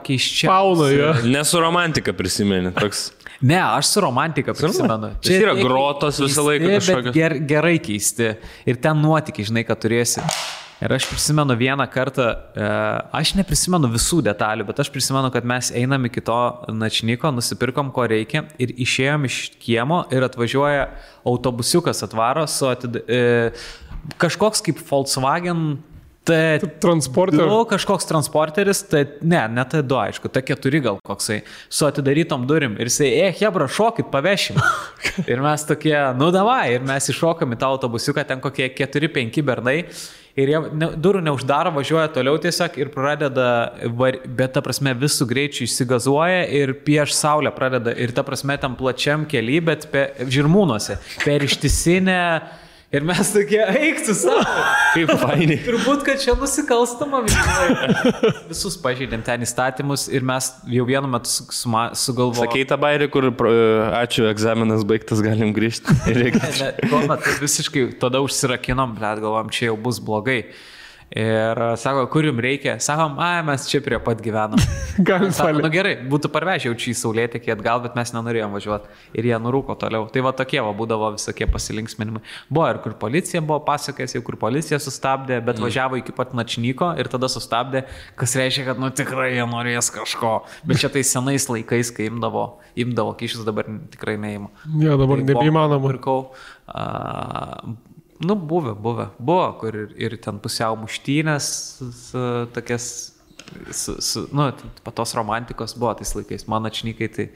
Fauna, jo.
Nesu romantika prisimeni, toks.
Ne, aš su romantika prisimenu.
Čia yra grotos visą laiką kažkokios.
Gerai keisti. Ir ten nuotykiai, žinai, kad turėsi. Ir aš prisimenu vieną kartą, aš neprisimenu visų detalių, bet aš prisimenu, kad mes einam iki to načnyko, nusipirkom, ko reikia ir išėjom iš kiemo ir atvažiuoja autobusiukas atvaro su kažkoks kaip Volkswagen
transporteris.
Kažkoks transporteris, ne T2, aišku, T4 gal koksai, su atidarytom durim. Ir jisai, hebra, šokit, pavešim. Ir mes tokie, davai, ir mes iššokam į tą autobusiuką, ten kokie 4-5 bernai. Ir jie durų neuždaro, važiuoja toliau tiesiog ir pradeda, bet ta prasme visų greičių išsigazuoja ir prieš saulę pradeda. Ir ta prasme tam plačiam kely, bet Žirmūnuose, per ištisinę. Ir mes tokie, eik su savo.
Kaip fainiai.
Turbūt, kad čia nusikalstama visus pažeidėm ten įstatymus ir mes jau vienu metu sugalvojom.
Sakei tą bairį, kur ačiū, egzaminas baigtas, galim grįžti.
Tuo metu visiškai tada užsirakinom, bet galvom, čia jau bus blogai. Ir sako, kur jums reikia? Sakom, mes čia prie pat gyvenam. Sako, gerai, būtų parvežiau čia į Saulėtekį atgal, bet mes nenorėjom važiuoti. Ir jie nurūko toliau. Tai tokie būdavo visokie pasilinksminimai. Buvo ir kur policija buvo pasakęs, jau kur policija sustabdė, bet važiavo iki pat načnyko ir tada sustabdė, kas reiškia, kad tikrai jie norės kažko. Bet čia tai senais laikais, kai imdavo kyšius, dabar tikrai neima.
Ja, dabar nebeįmanoma.
Buvo, kur ir ten pusiau muštynės, tokias, patos romantikos buvo tais laikais, mano čnykai tai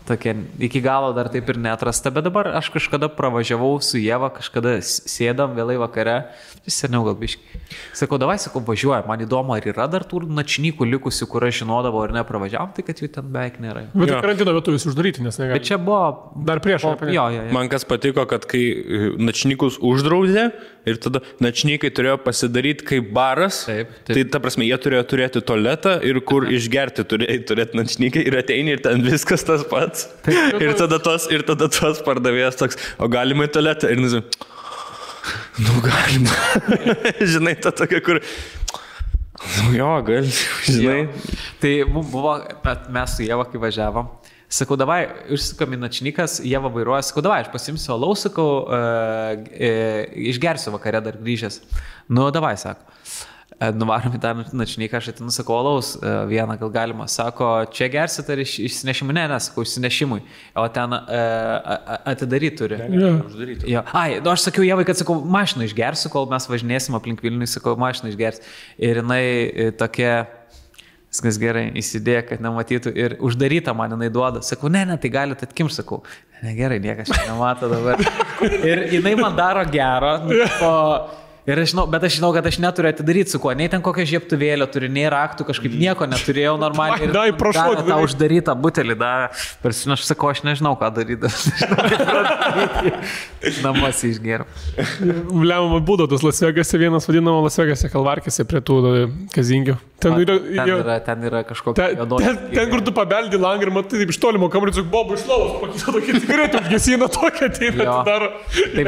tokie iki galo dar taip ir neatrasta, bet dabar aš kažkada pravažiavau su Ieva, kažkada sėdam vėlai vakare, seniau gal biškai. Sakau, važiuoja, man įdomu, ar yra dar tų načnykų likusių, kur aš žinodavau ar nepravažiavam, tai kad jų ten beveik nėra.
Bet karantino metu visi uždaryti, nes negali.
Bet čia buvo
dar prieš.
Jo.
Man kas patiko, kad kai načnykus uždraudė ir tada načnykai turėjo pasidaryti kaip baras,
taip.
Tai ta prasme, jie turėjo turėti tualetą ir kur išgerti turėti načnykai ir ateini ir ten viskas tas pats. Ir tada tos pardavėjas toks, o galima į tualetą? Ir galima. Žinai, ta tokia, kur... Jo, gal, žinai.
Jo. Tai buvo, mes su Ieva, kai važiavom, sakau, davai, užsukam į načnykas, Ieva vairuoja, sakau, davai, aš pasimsiu alaus, sakau, išgersiu vakare dar grįžęs. Davai, sako. Nuvarom į tą načnyką, aš atinu, sakau, alaus vieną gal galima. Sako, čia gersit ar išsinešimui? Ne, sakau, išsinešimui. O ten atidaryti turi.
Ja.
Aš sakiau Ievai, kad sakau, mašiną išgersiu, kol mes važinėsim aplink Vilnių, sakau, mašiną išgersiu. Ir jinai tokia, viskas gerai, įsidėjo, kad nematytų ir uždarytą man jinai duoda. Sakau, ne, tai galite atkimšti, sakau. Ne, gerai, niekas čia nemato dabar. Ir jinai man daro gero, ir aš žinau, kad aš neturiu atidaryti su kuo, nei ten kokią žiebtuvėlę turi, nei raktų, kažkaip nieko neturėjau normaliai.
Ir prašau,
tą uždarytą butelį davė. Aš sakau, aš nežinau, ką daryti. Namuose išgėriau.
Lemama būdavo tas Las Vegase, vienas vadinamo Las Vegase kalvarkėse prie tų kazingių. Ten
yra kažkokia
ten, kur tu pabeldi langą ir matai, taip iš tolimo kamerį, tik Bobu iš lovos, pakito tokį cigaretę, užgesina tokią, ateina, daro.
Tai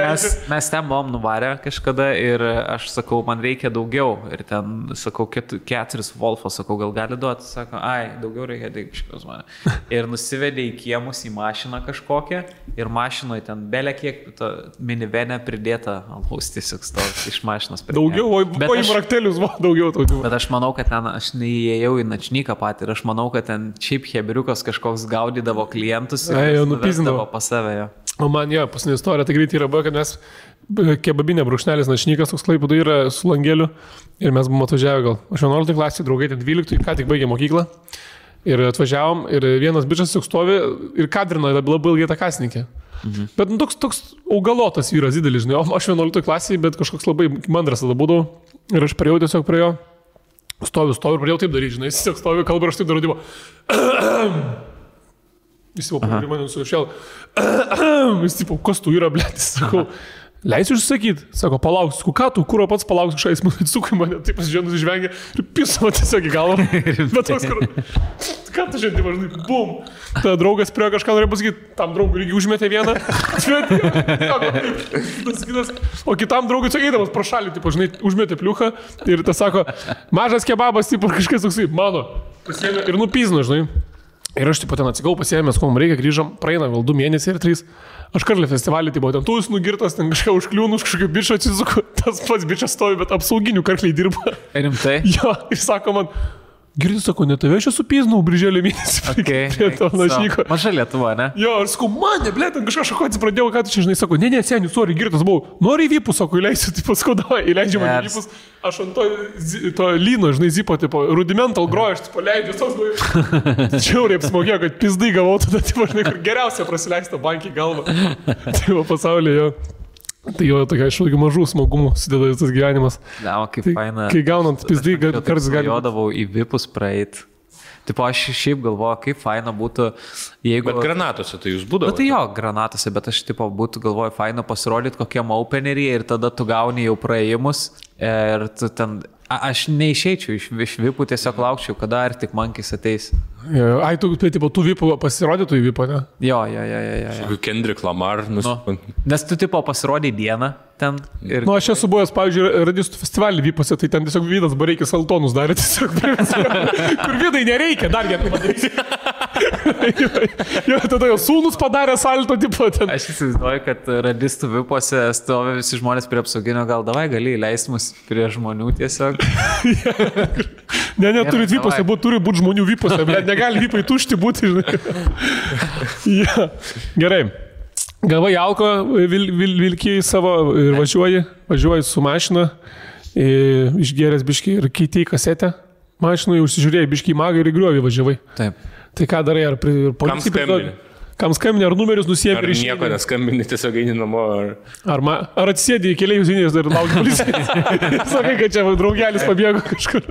mes ten buvom nuvarę kažkada ir aš sakau, man reikia daugiau. Ir ten, sakau, 4 Wolfos, sakau, gal gali duoti, sako, daugiau reikia, tai kažkas mane. Ir nusivedė į kiemus į mašiną kažkokią ir mašinoje ten belė kiek minivenė pridėta, alus tiesiog stovi iš mašinos.
Daugiau, o į raktelius daugiau tautų.
Bet aš manau, kad ten aš neįėjau į načnyką patį ir aš manau, kad ten šiaip heberiukas kažkoks gaudydavo klientus ir nuvesdavo pas save. Jo.
O man paskutinė istorija, tai greitai yra buvo, kad mes kebabinė brūkšnelis načnykas, toks Klaipėdoje yra su langeliu ir mes buvom atvažiavę gal. Aš 11 klasėje, draugai, 12, ką tik baigė mokyklą ir atvažiavom ir vienas bičas tik stovi ir kadrino labai ilgai tą kasininkė. Bet toks augalotas vyras didelis, žinai, aš 11 klasėje, bet kažkoks labai mandras tada būdavau ir aš priejau tiesiog prie jo. Stoviu ir pradėjau taip daryti, žinai, jis tiesiog stoviu, kalba ir aš taip darau, jis jau pradėjo mane nusišėl, jis tipo, kas tu yra, blėtis, sakau, leisiu išsakyti, sako, palauks, ką tu, kuro pats palauks, kažkas, jis atsukai mane, taip pasižiūrėjau, nusižvengė ir pisavo tiesiog į galvą, bet toks, ką tu žiūrėjai, žinai, bum, tada draugas prie kažką norėjo pasakyti, tam draugui irgi užmetė vieną, o kitam draugui sakėdamas pro šalį, tipo, žinai, užmetė pliuchą ir tas sako, mažas kebabas, tipo, kažkas toksai, mano, pasiėmė ir nupizno, žinai. Ir aš tipo ten atsigau, pasiėmės, ko mums reikia, grįžom, praeina gal 2 mėnesiai ir 3. Aš karlį festivalį, tipo, ten tu esi nugirtas, ten kažką užkliūnus, kažkokio bičio atsisuku, tas pats bičias stovi, bet apsauginių karliai dirba.
Rimtai?
Jo, ir sako man, girdi, sako, ne tave aš esu piznau, birželio mėnesį. Prie to našyko.
Maža Lietuva, ne?
Jo, ir sakau, mane, blė, ten kažką šakotis pradėjau, ką tu čia žinai, sako, ne, seniai, sorry, girtas buvau, nori į vipus, sako, įleisiu, tipo, skauda, įleidžiu man į vipus, aš ant to lyno, žinai, zipo, tipo, rudimental grojo, aš, tipo, leidžiu, tos buvai, čiauriai apsmogėjo, kad pizdai gavau, tada, tipo, žinai, kur geriausia prasileista bankį galvą, tipo, pasaulyje, jo. Tai jo tokia iš tokių mažų smagumų sudeda tas gyvenimas.
Na, kaip
tai,
faina.
Kai gaunant pizdai, kartais gali...
Jodavau į vipus praeit. Tipo, aš šiaip galvoju, kaip faina būtų, jeigu...
Bet granatose tai jūs būdavo?
Bet tai jo, granatose, bet aš tipo būtų galvoju, faina pasirodyti kokiam openeryje ir tada tu gauni jau praėjimus ir tu ten... Aš neišeičiau iš vipų, tiesiog laukčiau, kada ar tik mankis ateis.
Ai, tu vipų pasirodytų į vipą, ne?
Jo.
Kendrick Lamar.
Nes
tu tipo pasirodai dieną ten. Ir...
Aš esu buvęs, pavyzdžiui, radistų festivalį vipose, tai ten tiesiog Vydas Bareikis Saltonus darė tiesiog. Kur Vydai nereikia, dar vieną padaryti. Jo, tada jau sūnus padarė salto, tipo ten.
Aš įsivaizduoju, kad radistų vipose stovi visi žmonės prie apsauginio, gal davai gali įleisti mus prie žmonių tiesiog.
Ne, turit vipose, turi būti žmonių vipose, bet negali vipai tušti būti, žinai. Ja. Gerai. Gavai alko, vilkiai savo ir važiuoji su mašina, išgėręs biškį ir keitei kasetę. Mašinui užsižiūrėjai biškį į magą ir į griovį važiavai.
Taip.
Tai ką darai, ar policijai? Kam skambini, ar numerius nusiemi
ir išėjai? Ar nieko neskambini, tiesiog eini namo?
Ar atsisėdi į keliai jūzinės ir lauki policijai? Sakai, kad čia draugelis pabėgo kažkur.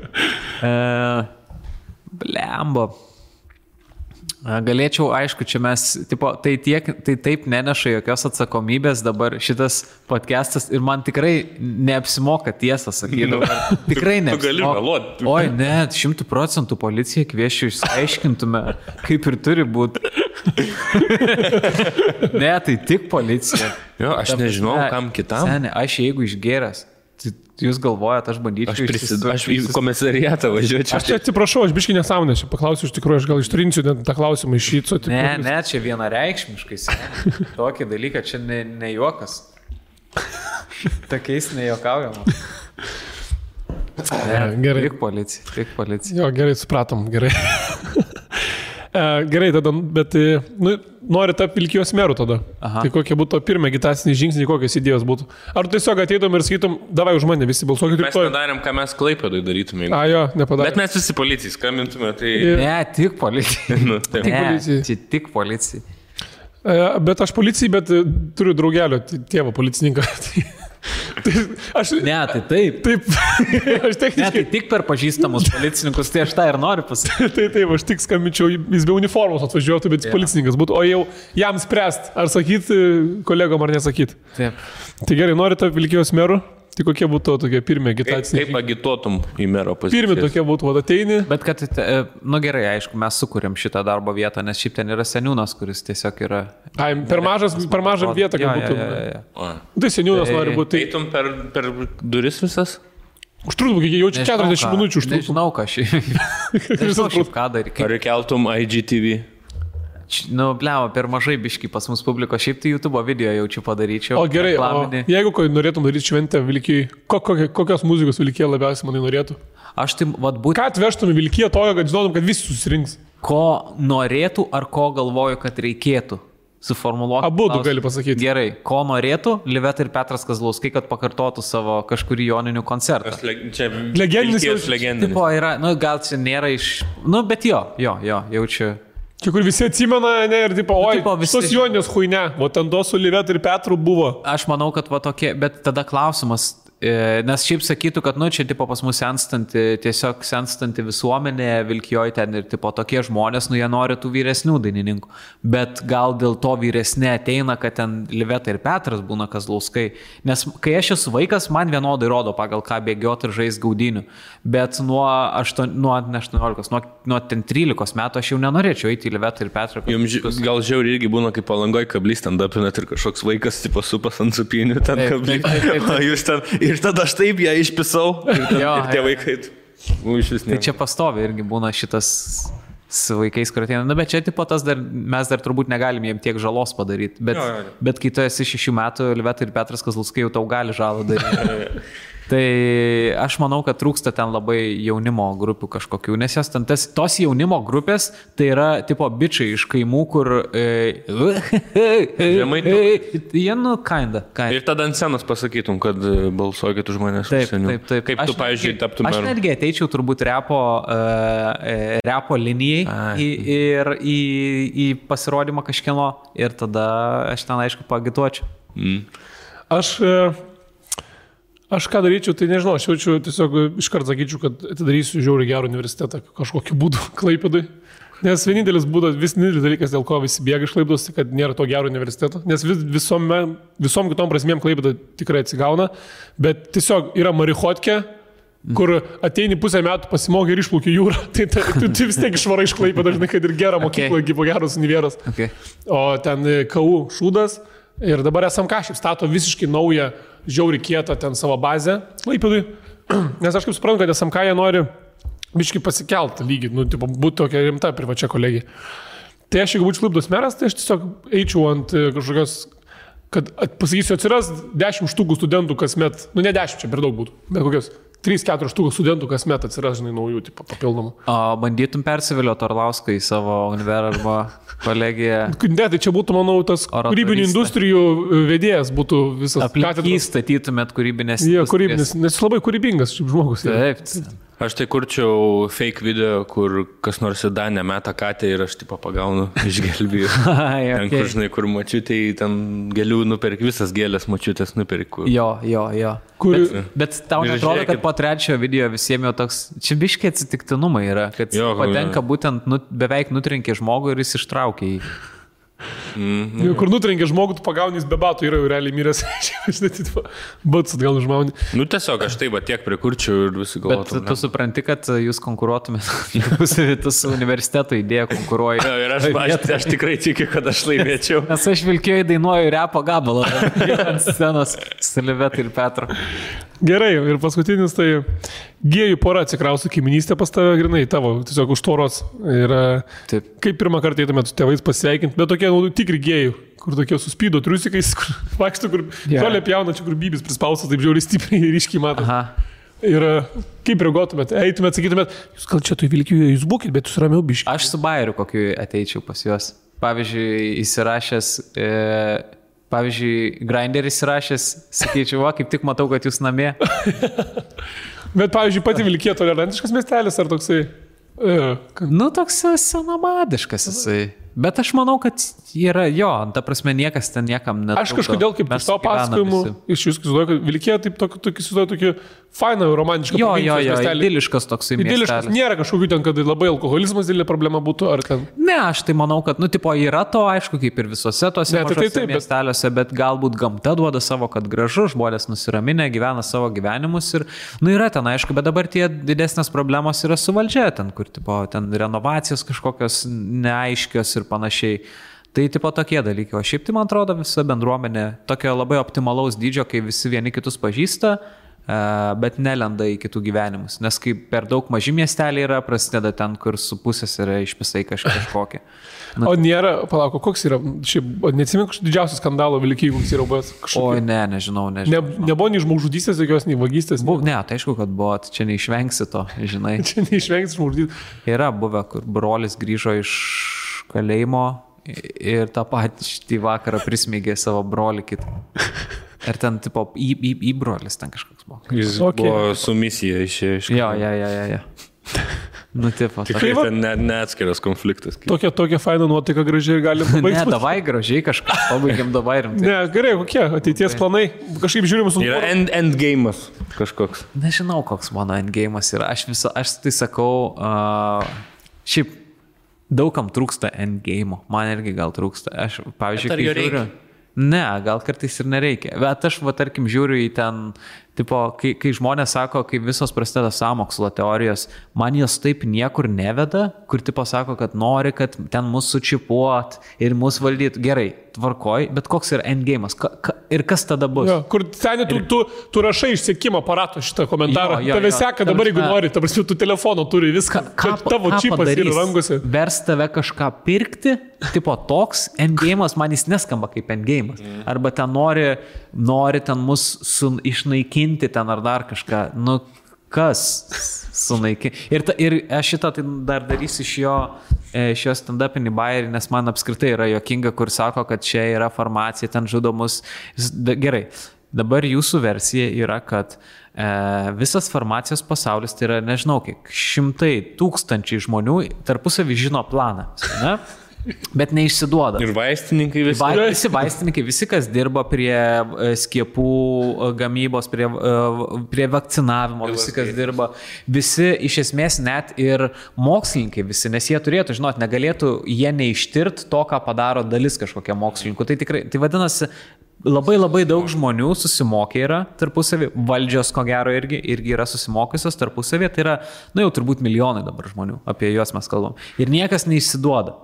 Blembo. Galėčiau, aišku, čia mes, tipo, tai taip neneša jokios atsakomybės dabar šitas podcastas ir man tikrai neapsimoka tiesą sakyti. Tikrai neapsimoka.
Tu gali meluoti.
Oi, ne, 100% policiją kvieščiau, išsiaiškintume, kaip ir turi būti. Ne, tai tik policija.
Jo, aš nežinau, kam kitam.
Seni, aš jeigu išgėręs, jūs galvojat, aš bandyčiau
Aš į komisariatą važiuočiau.
Aš čia atsiprašau, aš biškai nesąmonę, aš paklausiu iš tikrųjų, aš gal ištrinsiu tą klausimą iš šyco.
Ne, čia vienareikšmiškai. Tokį dalyką, čia ne juokas. Tokiais nejuokaujama.
Gerai.
Tik policija.
Jo, gerai, supratom, gerai. Gerai, tada, bet nori tapti Vilkijos meru tada. Aha. Tai kokie būtų pirmie agitaciniai žingsniai, kokios idėjos būtų? Ar tu tiesiog ateitum ir sakytum, davai už mane, visi balsuokit.
Mes nedarėm, ką mes Klaipėdoj darytume.
Jo, nepadarėm.
Bet mes visi policijai skambintume, tai...
Ne, tik policijai. Tik policijai.
Bet aš policijai, bet turiu draugelio tėvą policininką.
Ne, tai taip.
Taip. Aš techniškai...
Ne, tai tik per pažįstamus policininkus, tai aš tą ir noriu pasakyti.
Taip, aš tik skambinčiau, jis be uniformos atvažiuotų, bet policininkas būtų, o jau jam spręst, ar sakyti kolegom, ar nesakyti.
Taip.
Tai gerai, nori tapti Vilkijos meru, Tai kokie būtų tokie pirmie agitaciniai?
Kaip agituotum į mero poziciją?
Pirmie tokie būtų, ateini.
Bet kad, gerai, aišku, mes sukūrėm šitą darbo vietą, nes šiaip ten yra seniūnas, kuris tiesiog yra...
Per mažą vietą, kad būtų. Tai seniūnas nori būti.
Eitum per duris visas?
Užtruktų, kai jaučiu 40 minučių užtruktų.
Nežinau, ką šiaip ką daryti.
Ar keltum IGTV?
Blema, per mažai biški pas mus publiko, šiaip tai YouTube video jaučiu padaryčiau.
O gerai, jeigu norėtum daryti šventę Vilkijai, kokios muzikos Vilkija labiausiai manai norėtų?
Aš tai,
Ką atvežtum į Vilkiją tojo, kad žinotum, kad visi susirinks?
Ko norėtų ar ko galvoju, kad reikėtų? Suformuluoti.
Abu tu gali pasakyti.
Gerai, ko norėtų Liveta ir Petras Kazlauskai, kad pakartotų savo kažkurį joninių koncertą.
Čia
legendinis.
Tipo yra, gal čia nėra iš... Bet jo, jaučiu.
Čia kur visi atsimena, ne, ir tipo, visos jonės huine, o ten to su Liveta ir Petru buvo.
Aš manau, kad tokie, bet tada klausimas, nes šiaip sakytų, kad, čia tipo pas mus tiesiog senstanti visuomenė, Vilkijoje ten ir tipo tokie žmonės, jie nori tų vyresnių dainininkų. Bet gal dėl to vyresnė ateina, kad ten Liveta ir Petras būna Kazlauskai. Nes kai aš esu vaikas, man vienodai rodo, pagal ką bėgioti ir žaisti gaudynių. Bet nuo 13 metų aš jau nenorėčiau eiti į Livetą ir Petrą.
Jums gal žiauri irgi būna, kaip Palangoj kablys ten dapinat ir kažkoks vaikas tipo supas ant supinių ten kablys. O jūs ten... Ir tada aš taip ją išpisau ir tie vaikai
Tai čia pastovi irgi būna šitas su vaikais, kur ateina. Bet čia tipo tas mes dar turbūt negalim jiem tiek žalos padaryti. Bet kai tu esi 6 metų, Liveta ir Petras Kazlauskai jau tau gali žalą daryti. Tai aš manau, kad trūksta ten labai jaunimo grupių kažkokių, nes jos ten tos jaunimo grupės, tai yra tipo bičiai iš kaimų, kur... Jie, kinda.
Ir tada ant scenos pasakytum, kad balsuokit už manęs.
Taip.
Kaip tu, pavyzdžiui, taptum meru?
Aš netgi ateičiau turbūt repo linijai ir į pasirodymą kažkieno ir tada aš ten, aišku, paagituočiau.
Aš ką daryčiau, tai nežinau, aš jaučiu tiesiog iškart sakyčiau, kad atidarysiu žiauriai gerą universitetą kažkokiu būdu Klaipėdai. Nes vienintelis dalykas, dėl ko visi bėga iš Klaipėdos, kad nėra to gero universiteto. Nes visom kitom prasmėm Klaipėda tikrai atsigauna, bet tiesiog yra marichotkė, kur ateini pusę metų pasimokai ir išplauki jūrą, tai tu vis tiek išvarai iš Klaipėdos, dažnai, kad ir gerą mokyklą, gyvo geros univeras. O ten KU šūdas ir dabar SMK šiaip stato visiškai naują žiauri kietą ten savo bazę Klaipėdui, nes aš kaip suprantu, kad SMK jie nori biškai pasikelt lygį, būti tokia rimta privačia kolegija. Tai aš, jeigu būčiau Klaipėdos meras, tai aš tiesiog eičiau ant kažkokios, kad pasakysiu, atsiras 10 štukų studentų kasmet, ne 10, čia per daug būtų, bet kokios 3-4 štukų studentų kasmet atsiras, naujų papildomų.
O bandytum persivilioti Orlauską į savo univerą arba kolegiją?
Ne, tai čia būtų, manau, tas kūrybinių industrijų vedėjas būtų visas.
Aplink statytumėt kūrybinės industrijas.
Jie, kūrybinės, nes jis labai kūrybingas šiaip žmogus.
Taip.
Aš tai kurčiau fake video, kur kas nors į Danę meta katę ir aš tipo pagaunu iš gelbijų. Ten, kur, žinai, kur mačiutei, ten gėlių nuperk, visas gėlės mačiutės nuperk.
Jo. Bet tau netrodo, kad po trečiojo video visiems jau toks, čia biškiai atsitiktinumai yra, kad patenka būtent beveik nutrenkė žmogų ir jis ištraukė jį.
Kur nutrenkė žmogų, tu pagauni, jis be batų yra realiai miręs. Bats atgal užmauni.
Tiesiog aš taip tiek prikurčiau ir visi galvotų.
Bet tu supranti, kad jūs konkuruotumėt, tu su universiteto idėja konkuruoji.
Ir aš tikrai tikiu, kad aš laimėčiau.
Nes aš Vilkijoje dainuoju repo gabalą ant scenos su Liveta ir Petru.
Gerai, ir paskutinis tai gėjų pora atsikrausto kaiminystę pas tave, grinai, tavo, tiesiog už tvoros. Ir kaip pirmą kartą eitumėt su tėvais pasveikinti, bet tokie tikri gėjų, kur tokie suspydo triusikais, kur vaikšto, kur žolė pjauna, čia kur bybis prispaustas, taip žiauriai stipriai ir ryškiai mato. Ir kaip reaguotumėt, eitumėt, sakytumėt, jūs gal čia tu Vilkijoje, jūs būkit, bet jūs ramiau biškiai.
Aš su Bajeriu kokiu ateičiau pas juos. Pavyzdžiui, įsirašęs... Pavyzdžiui, Grindr įsirašęs, sakyčiau, kaip tik matau, kad jūs namie.
Bet, pavyzdžiui, pati Vilkija tolerantiškas miestelis ar toksai?
Toks senamadiškas jisai. Bet aš manau, kad yra jo, ta prasme niekas ten niekam netrukdo.
Aš kažkodėl kaip iš to pasakojimų, iš jūsų įsivaizduoju, kad Vilkija taip tokį fainą, romantišką
idiliškas toksai miestelis.
Nėra kažkokių ten, kad labai alkoholizmas didelė problema būtų, ar ten.
Ne, aš tai manau, kad, tipo, yra to, aišku, kaip ir visose tose miesteliuose, bet galbūt gamta duoda savo, kad gražu, žmonės nusiraminę, gyvena savo gyvenimus ir, yra ten, aišku, bet dabar tie didesnės problemos yra su valdžia, ten, kur, tipo, ten renovacijos kažkokios neaiškios ir panašiai. Tai tipo tokie dalykai, o šiaip tai man atrodo visa bendruomenė tokio labai optimalaus dydžio, kai visi vieni kitus pažįsta, bet nelenda į kitų gyvenimus. Nes kai per daug maži miesteliai yra, prasideda ten, kur su pusės yra išpisai kažkokie.
O nėra, palauk, koks yra, šiaip neatsimenu kažkokio didžiausio skandalo Vilkijai, koks yra buvęs kažkokio.
Oi, nežinau.
Nebuvo nei žmogžudystės, jokios, nei vagystės.
Ne, tai aišku, kad buvo, čia neišvengsi to, žinai.
Čia neišvengsi žmogžudystės.
Yra buvę, kur brolis grįžo iš kalėjimo ir tą patį vakarą prismėgė savo brolį kitą. Ir ten, tipo, į brolis ten kažkoks buvo.
Jis buvo su misija iš.
Jo. Nu, tipo.
Tikrai ten neatskiras konfliktas.
Tokia faina nuotaika gražiai galim pabaigti.
Ne, davai gražiai kažką, pabaigiam davai rimtai.
Ne, gerai, kokie ateities planai? Kažkaip žiūrim su...
Yra endgame'as kažkoks.
Nežinau, koks mano endgame'as yra. Aš tai sakau, šiaip daugam trūksta endgame'o. Man irgi gal trūksta. Aš, pavyzdžiui, kai žiūriu... Ne, gal kartais ir nereikia. Bet aš, tarkim, žiūriu į ten, tipo, kai žmonės sako, kai visos prasideda sąmokslo teorijos, man jos taip niekur neveda, kur, tipo, sako, kad nori, kad ten mus sučipuot ir mus valdyt. Gerai, tvarkoj, bet koks yra endgame'as? Ir kas tada bus?
Jo, kur seniai tu rašai iš sekimo aparato šitą komentarą. Tave seka dabar, jeigu nori, ta prasme, tu telefono turi viską. Tavo čipas yra rankose.
Vers tave kažką pirkti, tipo, toks endgame'as, man jis neskamba kaip endgame'as. Arba ten nori ten mus išnaikinti ten ar dar kažką. Nu, kas sunaikinti? Ir aš šitą tai dar darysiu iš jo stand-upinį bairį, nes man apskritai yra juokinga, kur sako, kad čia yra farmacija, ten žudomus. Gerai, dabar jūsų versija yra, kad visas farmacijos pasaulis, tai yra, nežinau, kiek 100 000 žmonių tarpusavį žino planą, ne? Bet neišsiduoda.
Ir vaistininkai visi.
Visi vaistininkai, visi, kas dirba prie skiepų gamybos, prie vakcinavimo, visi, kas dirba, visi iš esmės net ir mokslininkai visi, nes jie turėtų, žinot, negalėtų jie neištirt to, ką padaro dalis kažkokia mokslininkų. Tai tikrai, tai vadinasi, labai daug žmonių susimokė yra tarpusavį, valdžios ko gero irgi yra susimokusios tarpusavį, tai yra, jau turbūt milijonai dabar žmonių, apie juos mes kalbam. Ir niekas neišsiduoda.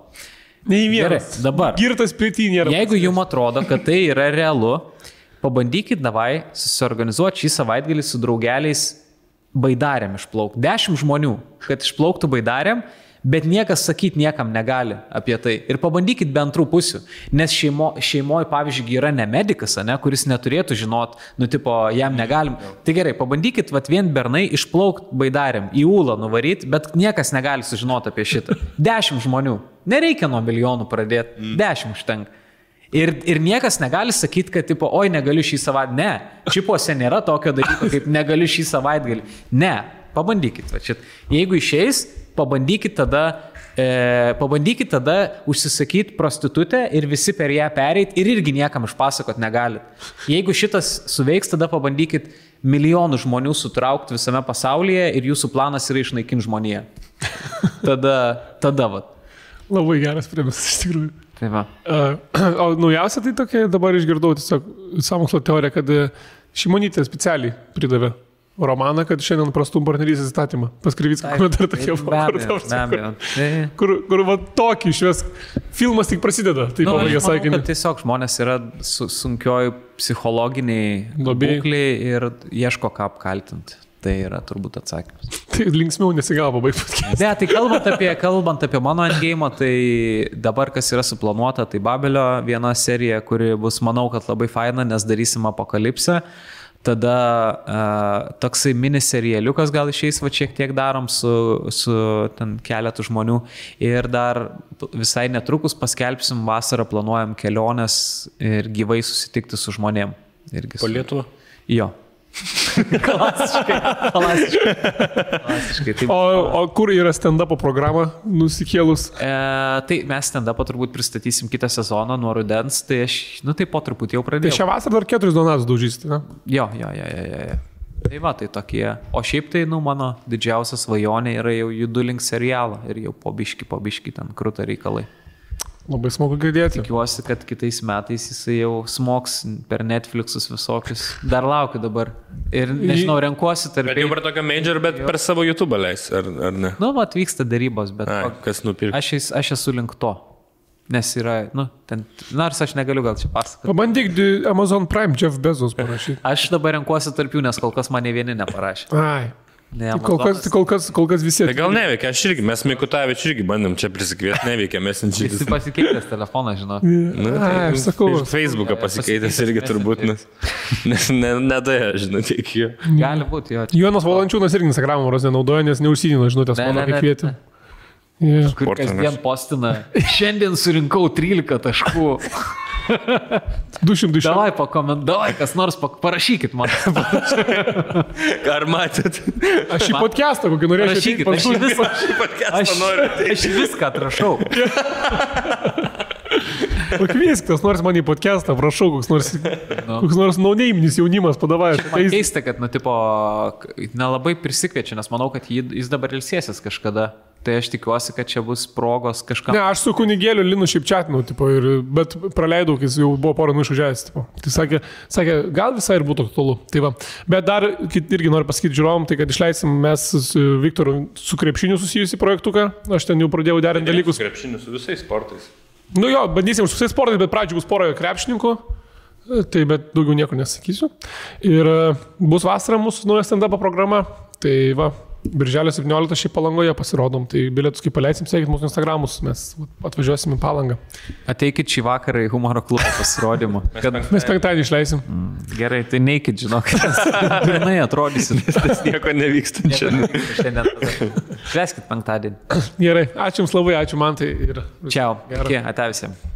Nei vienas.
Gerai, dabar.
Girtas pritį nėra.
Jeigu jums atrodo, kad tai yra realu, pabandykit davai susiorganizuoti šį savaitgalį su draugeliais baidarėm išplaukti. 10 žmonių, kad išplauktų baidarėm, bet niekas sakyti niekam negali apie tai. Ir pabandykit be antrų pusių. Nes šeimoje, pavyzdžiui, yra ne medikas, kuris neturėtų žinot, tipo, jam negalim. Tai gerai, pabandykit vien bernai išplaukti baidarėm, į Ūlą nuvaryti, bet niekas negali sužinoti apie šitą. 10 žmonių. Nereikia nuo milijonų pradėti. 10 užtenka. Ir niekas negali sakyti, kad, tipo, oi, negaliu šį savaitgalį. Ne, čipuose nėra tokio dalyko, kaip negaliu šį savaitgalį. Ne, pabandykit. Jeigu išeis, pabandykit tada užsisakyti prostitutę ir visi per ją pereit ir irgi niekam išpasakot negalit. Jeigu šitas suveiks, tada pabandykit milijonų žmonių sutraukti visame pasaulyje ir jūsų planas yra išnaikinti žmoniją. Tada vat.
Labai geras premisas, iš tikrųjų.
Tai va.
O naujausia tai tokia, dabar išgirdau tiesiog sąmokslo teoriją, kad Šimonytė specialiai pridavė romaną, kad šiandien prastum partnerystės įstatymą. Pas Krivicką komentarą tokie buvo. Kur va tokį išves. Filmas tik prasideda. Tai
aš manau, kad tiesiog žmonės yra sunkioj psichologiniai būkliai ir ieško ką apkaltinti. Tai yra turbūt atsakymas.
Tai linksmiau nesigavo baigti.
Ne, tai kalbant apie mano endgame'ą, tai dabar kas yra suplanuota, tai Babelio viena serija, kuri bus, manau, kad labai faina, nes darysim apokalipsę. Tada toksai miniserialiukas gal išeis, va šiek tiek darom su ten keletų žmonių. Ir dar visai netrukus paskelbsim, vasarą planuojam keliones ir gyvai susitikti su žmonėm.
Po Lietuvą?
Jo. Klasiškai. Taip.
O kur yra stand-upo programa nusikėlus?
Tai mes stand-upą turbūt pristatysim kitą sezoną nuo rudens, tai aš, tai po truputį jau
Tai
pradėjau.
šią vasarą dar 4 donatus daužysite, ne?
Jo. Tai va, tai tokie. O šiaip tai, mano didžiausia svajonė yra jau judu link serialą ir jau po biški ten krūta reikalai.
Labai smagu girdėti.
Tikiuosi, kad kitais metais jisai jau smoks per Netflixus visokius. Dar laukiu dabar. Ir nežinau, renkuosi tarp...
Bet jau per tokio major, bet per savo YouTube leis, ar ne?
Atvyksta darybos, bet...
Kas nupirka?
Aš esu link to. Nes yra, ten... Nors aš negaliu gal čia pasakoti.
Pabandyk Amazon Prime Jeff Bezos parašyti.
Aš dabar renkuosi tarp jų, nes kol kas mane vieni neparašė.
Ai.
Ne,
kol kas visi.
Tai gal neveikia, mes Mikutavičių irgi bandėm čia prisikviesti, neveikia, mes
Jis pasikeitęs telefoną, žinau.
Aš sakau.
Ir Facebooką pasikeitęs irgi turbūt, nes nedėja, žinau, tiek jo.
Gali būti, jo.
Jonas Valančiūnas irgi Instagram'o nenaudoja, nes neužsidino žinutės mano, kai kvietė.
Kur kasdien postina. Šiandien surinkau 13 taškų.
200.
Davai pakomentuoj, kas nors parašykit man.
Ar matėt?
Aš į podcastą kokį norėčiau.
Aš viską atrašau.
Pakviesk, tas nors man į podcastą, prašau, koks nors naunėiminis jaunimas padavai.
Man keista, kad, nelabai prisikviečia, nes manau, kad jis dabar ilsėsis kažkada. Tai aš tikiuosi, kad čia bus progos kažkam.
Ne, aš su kunigėliu Linu šiaip čatinau, bet praleidau, kai jis jau buvo porą išvažiavęs. Tai sakė, gal visai ir būtų aktualu. Tai va. Bet dar irgi noriu pasakyti žiūrovom, tai kad išleisim mes su Viktoru su krepšiniu susijusi projektuką. Aš ten jau pradėjau derinti dalykus.
Su krepšiniu, su visais sportais.
Bandysim su visais sportais, bet pradžioj bus pora krepšininkų. Tai bet daugiau nieko nesakysiu. Ir bus vasara mūsų nauja stand-up programa. Tai va. Birželio 17 šiaip Palangoje pasirodom, tai bilietus kaip paleisim, sekit mūsų Instagramus, mes atvažiuosim į Palangą.
Ateikit šį vakarą į humoro klubą pasirodymą.
Mes penktadienį išleisim.
Gerai, tai neikit, žinok, pirmai atrodysit.
Tas nieko nevyksta
šiandien. Švęskit penktadienį.
Gerai, ačiū Jums labai, ačiū Mantai.
Čiau, ate visiems.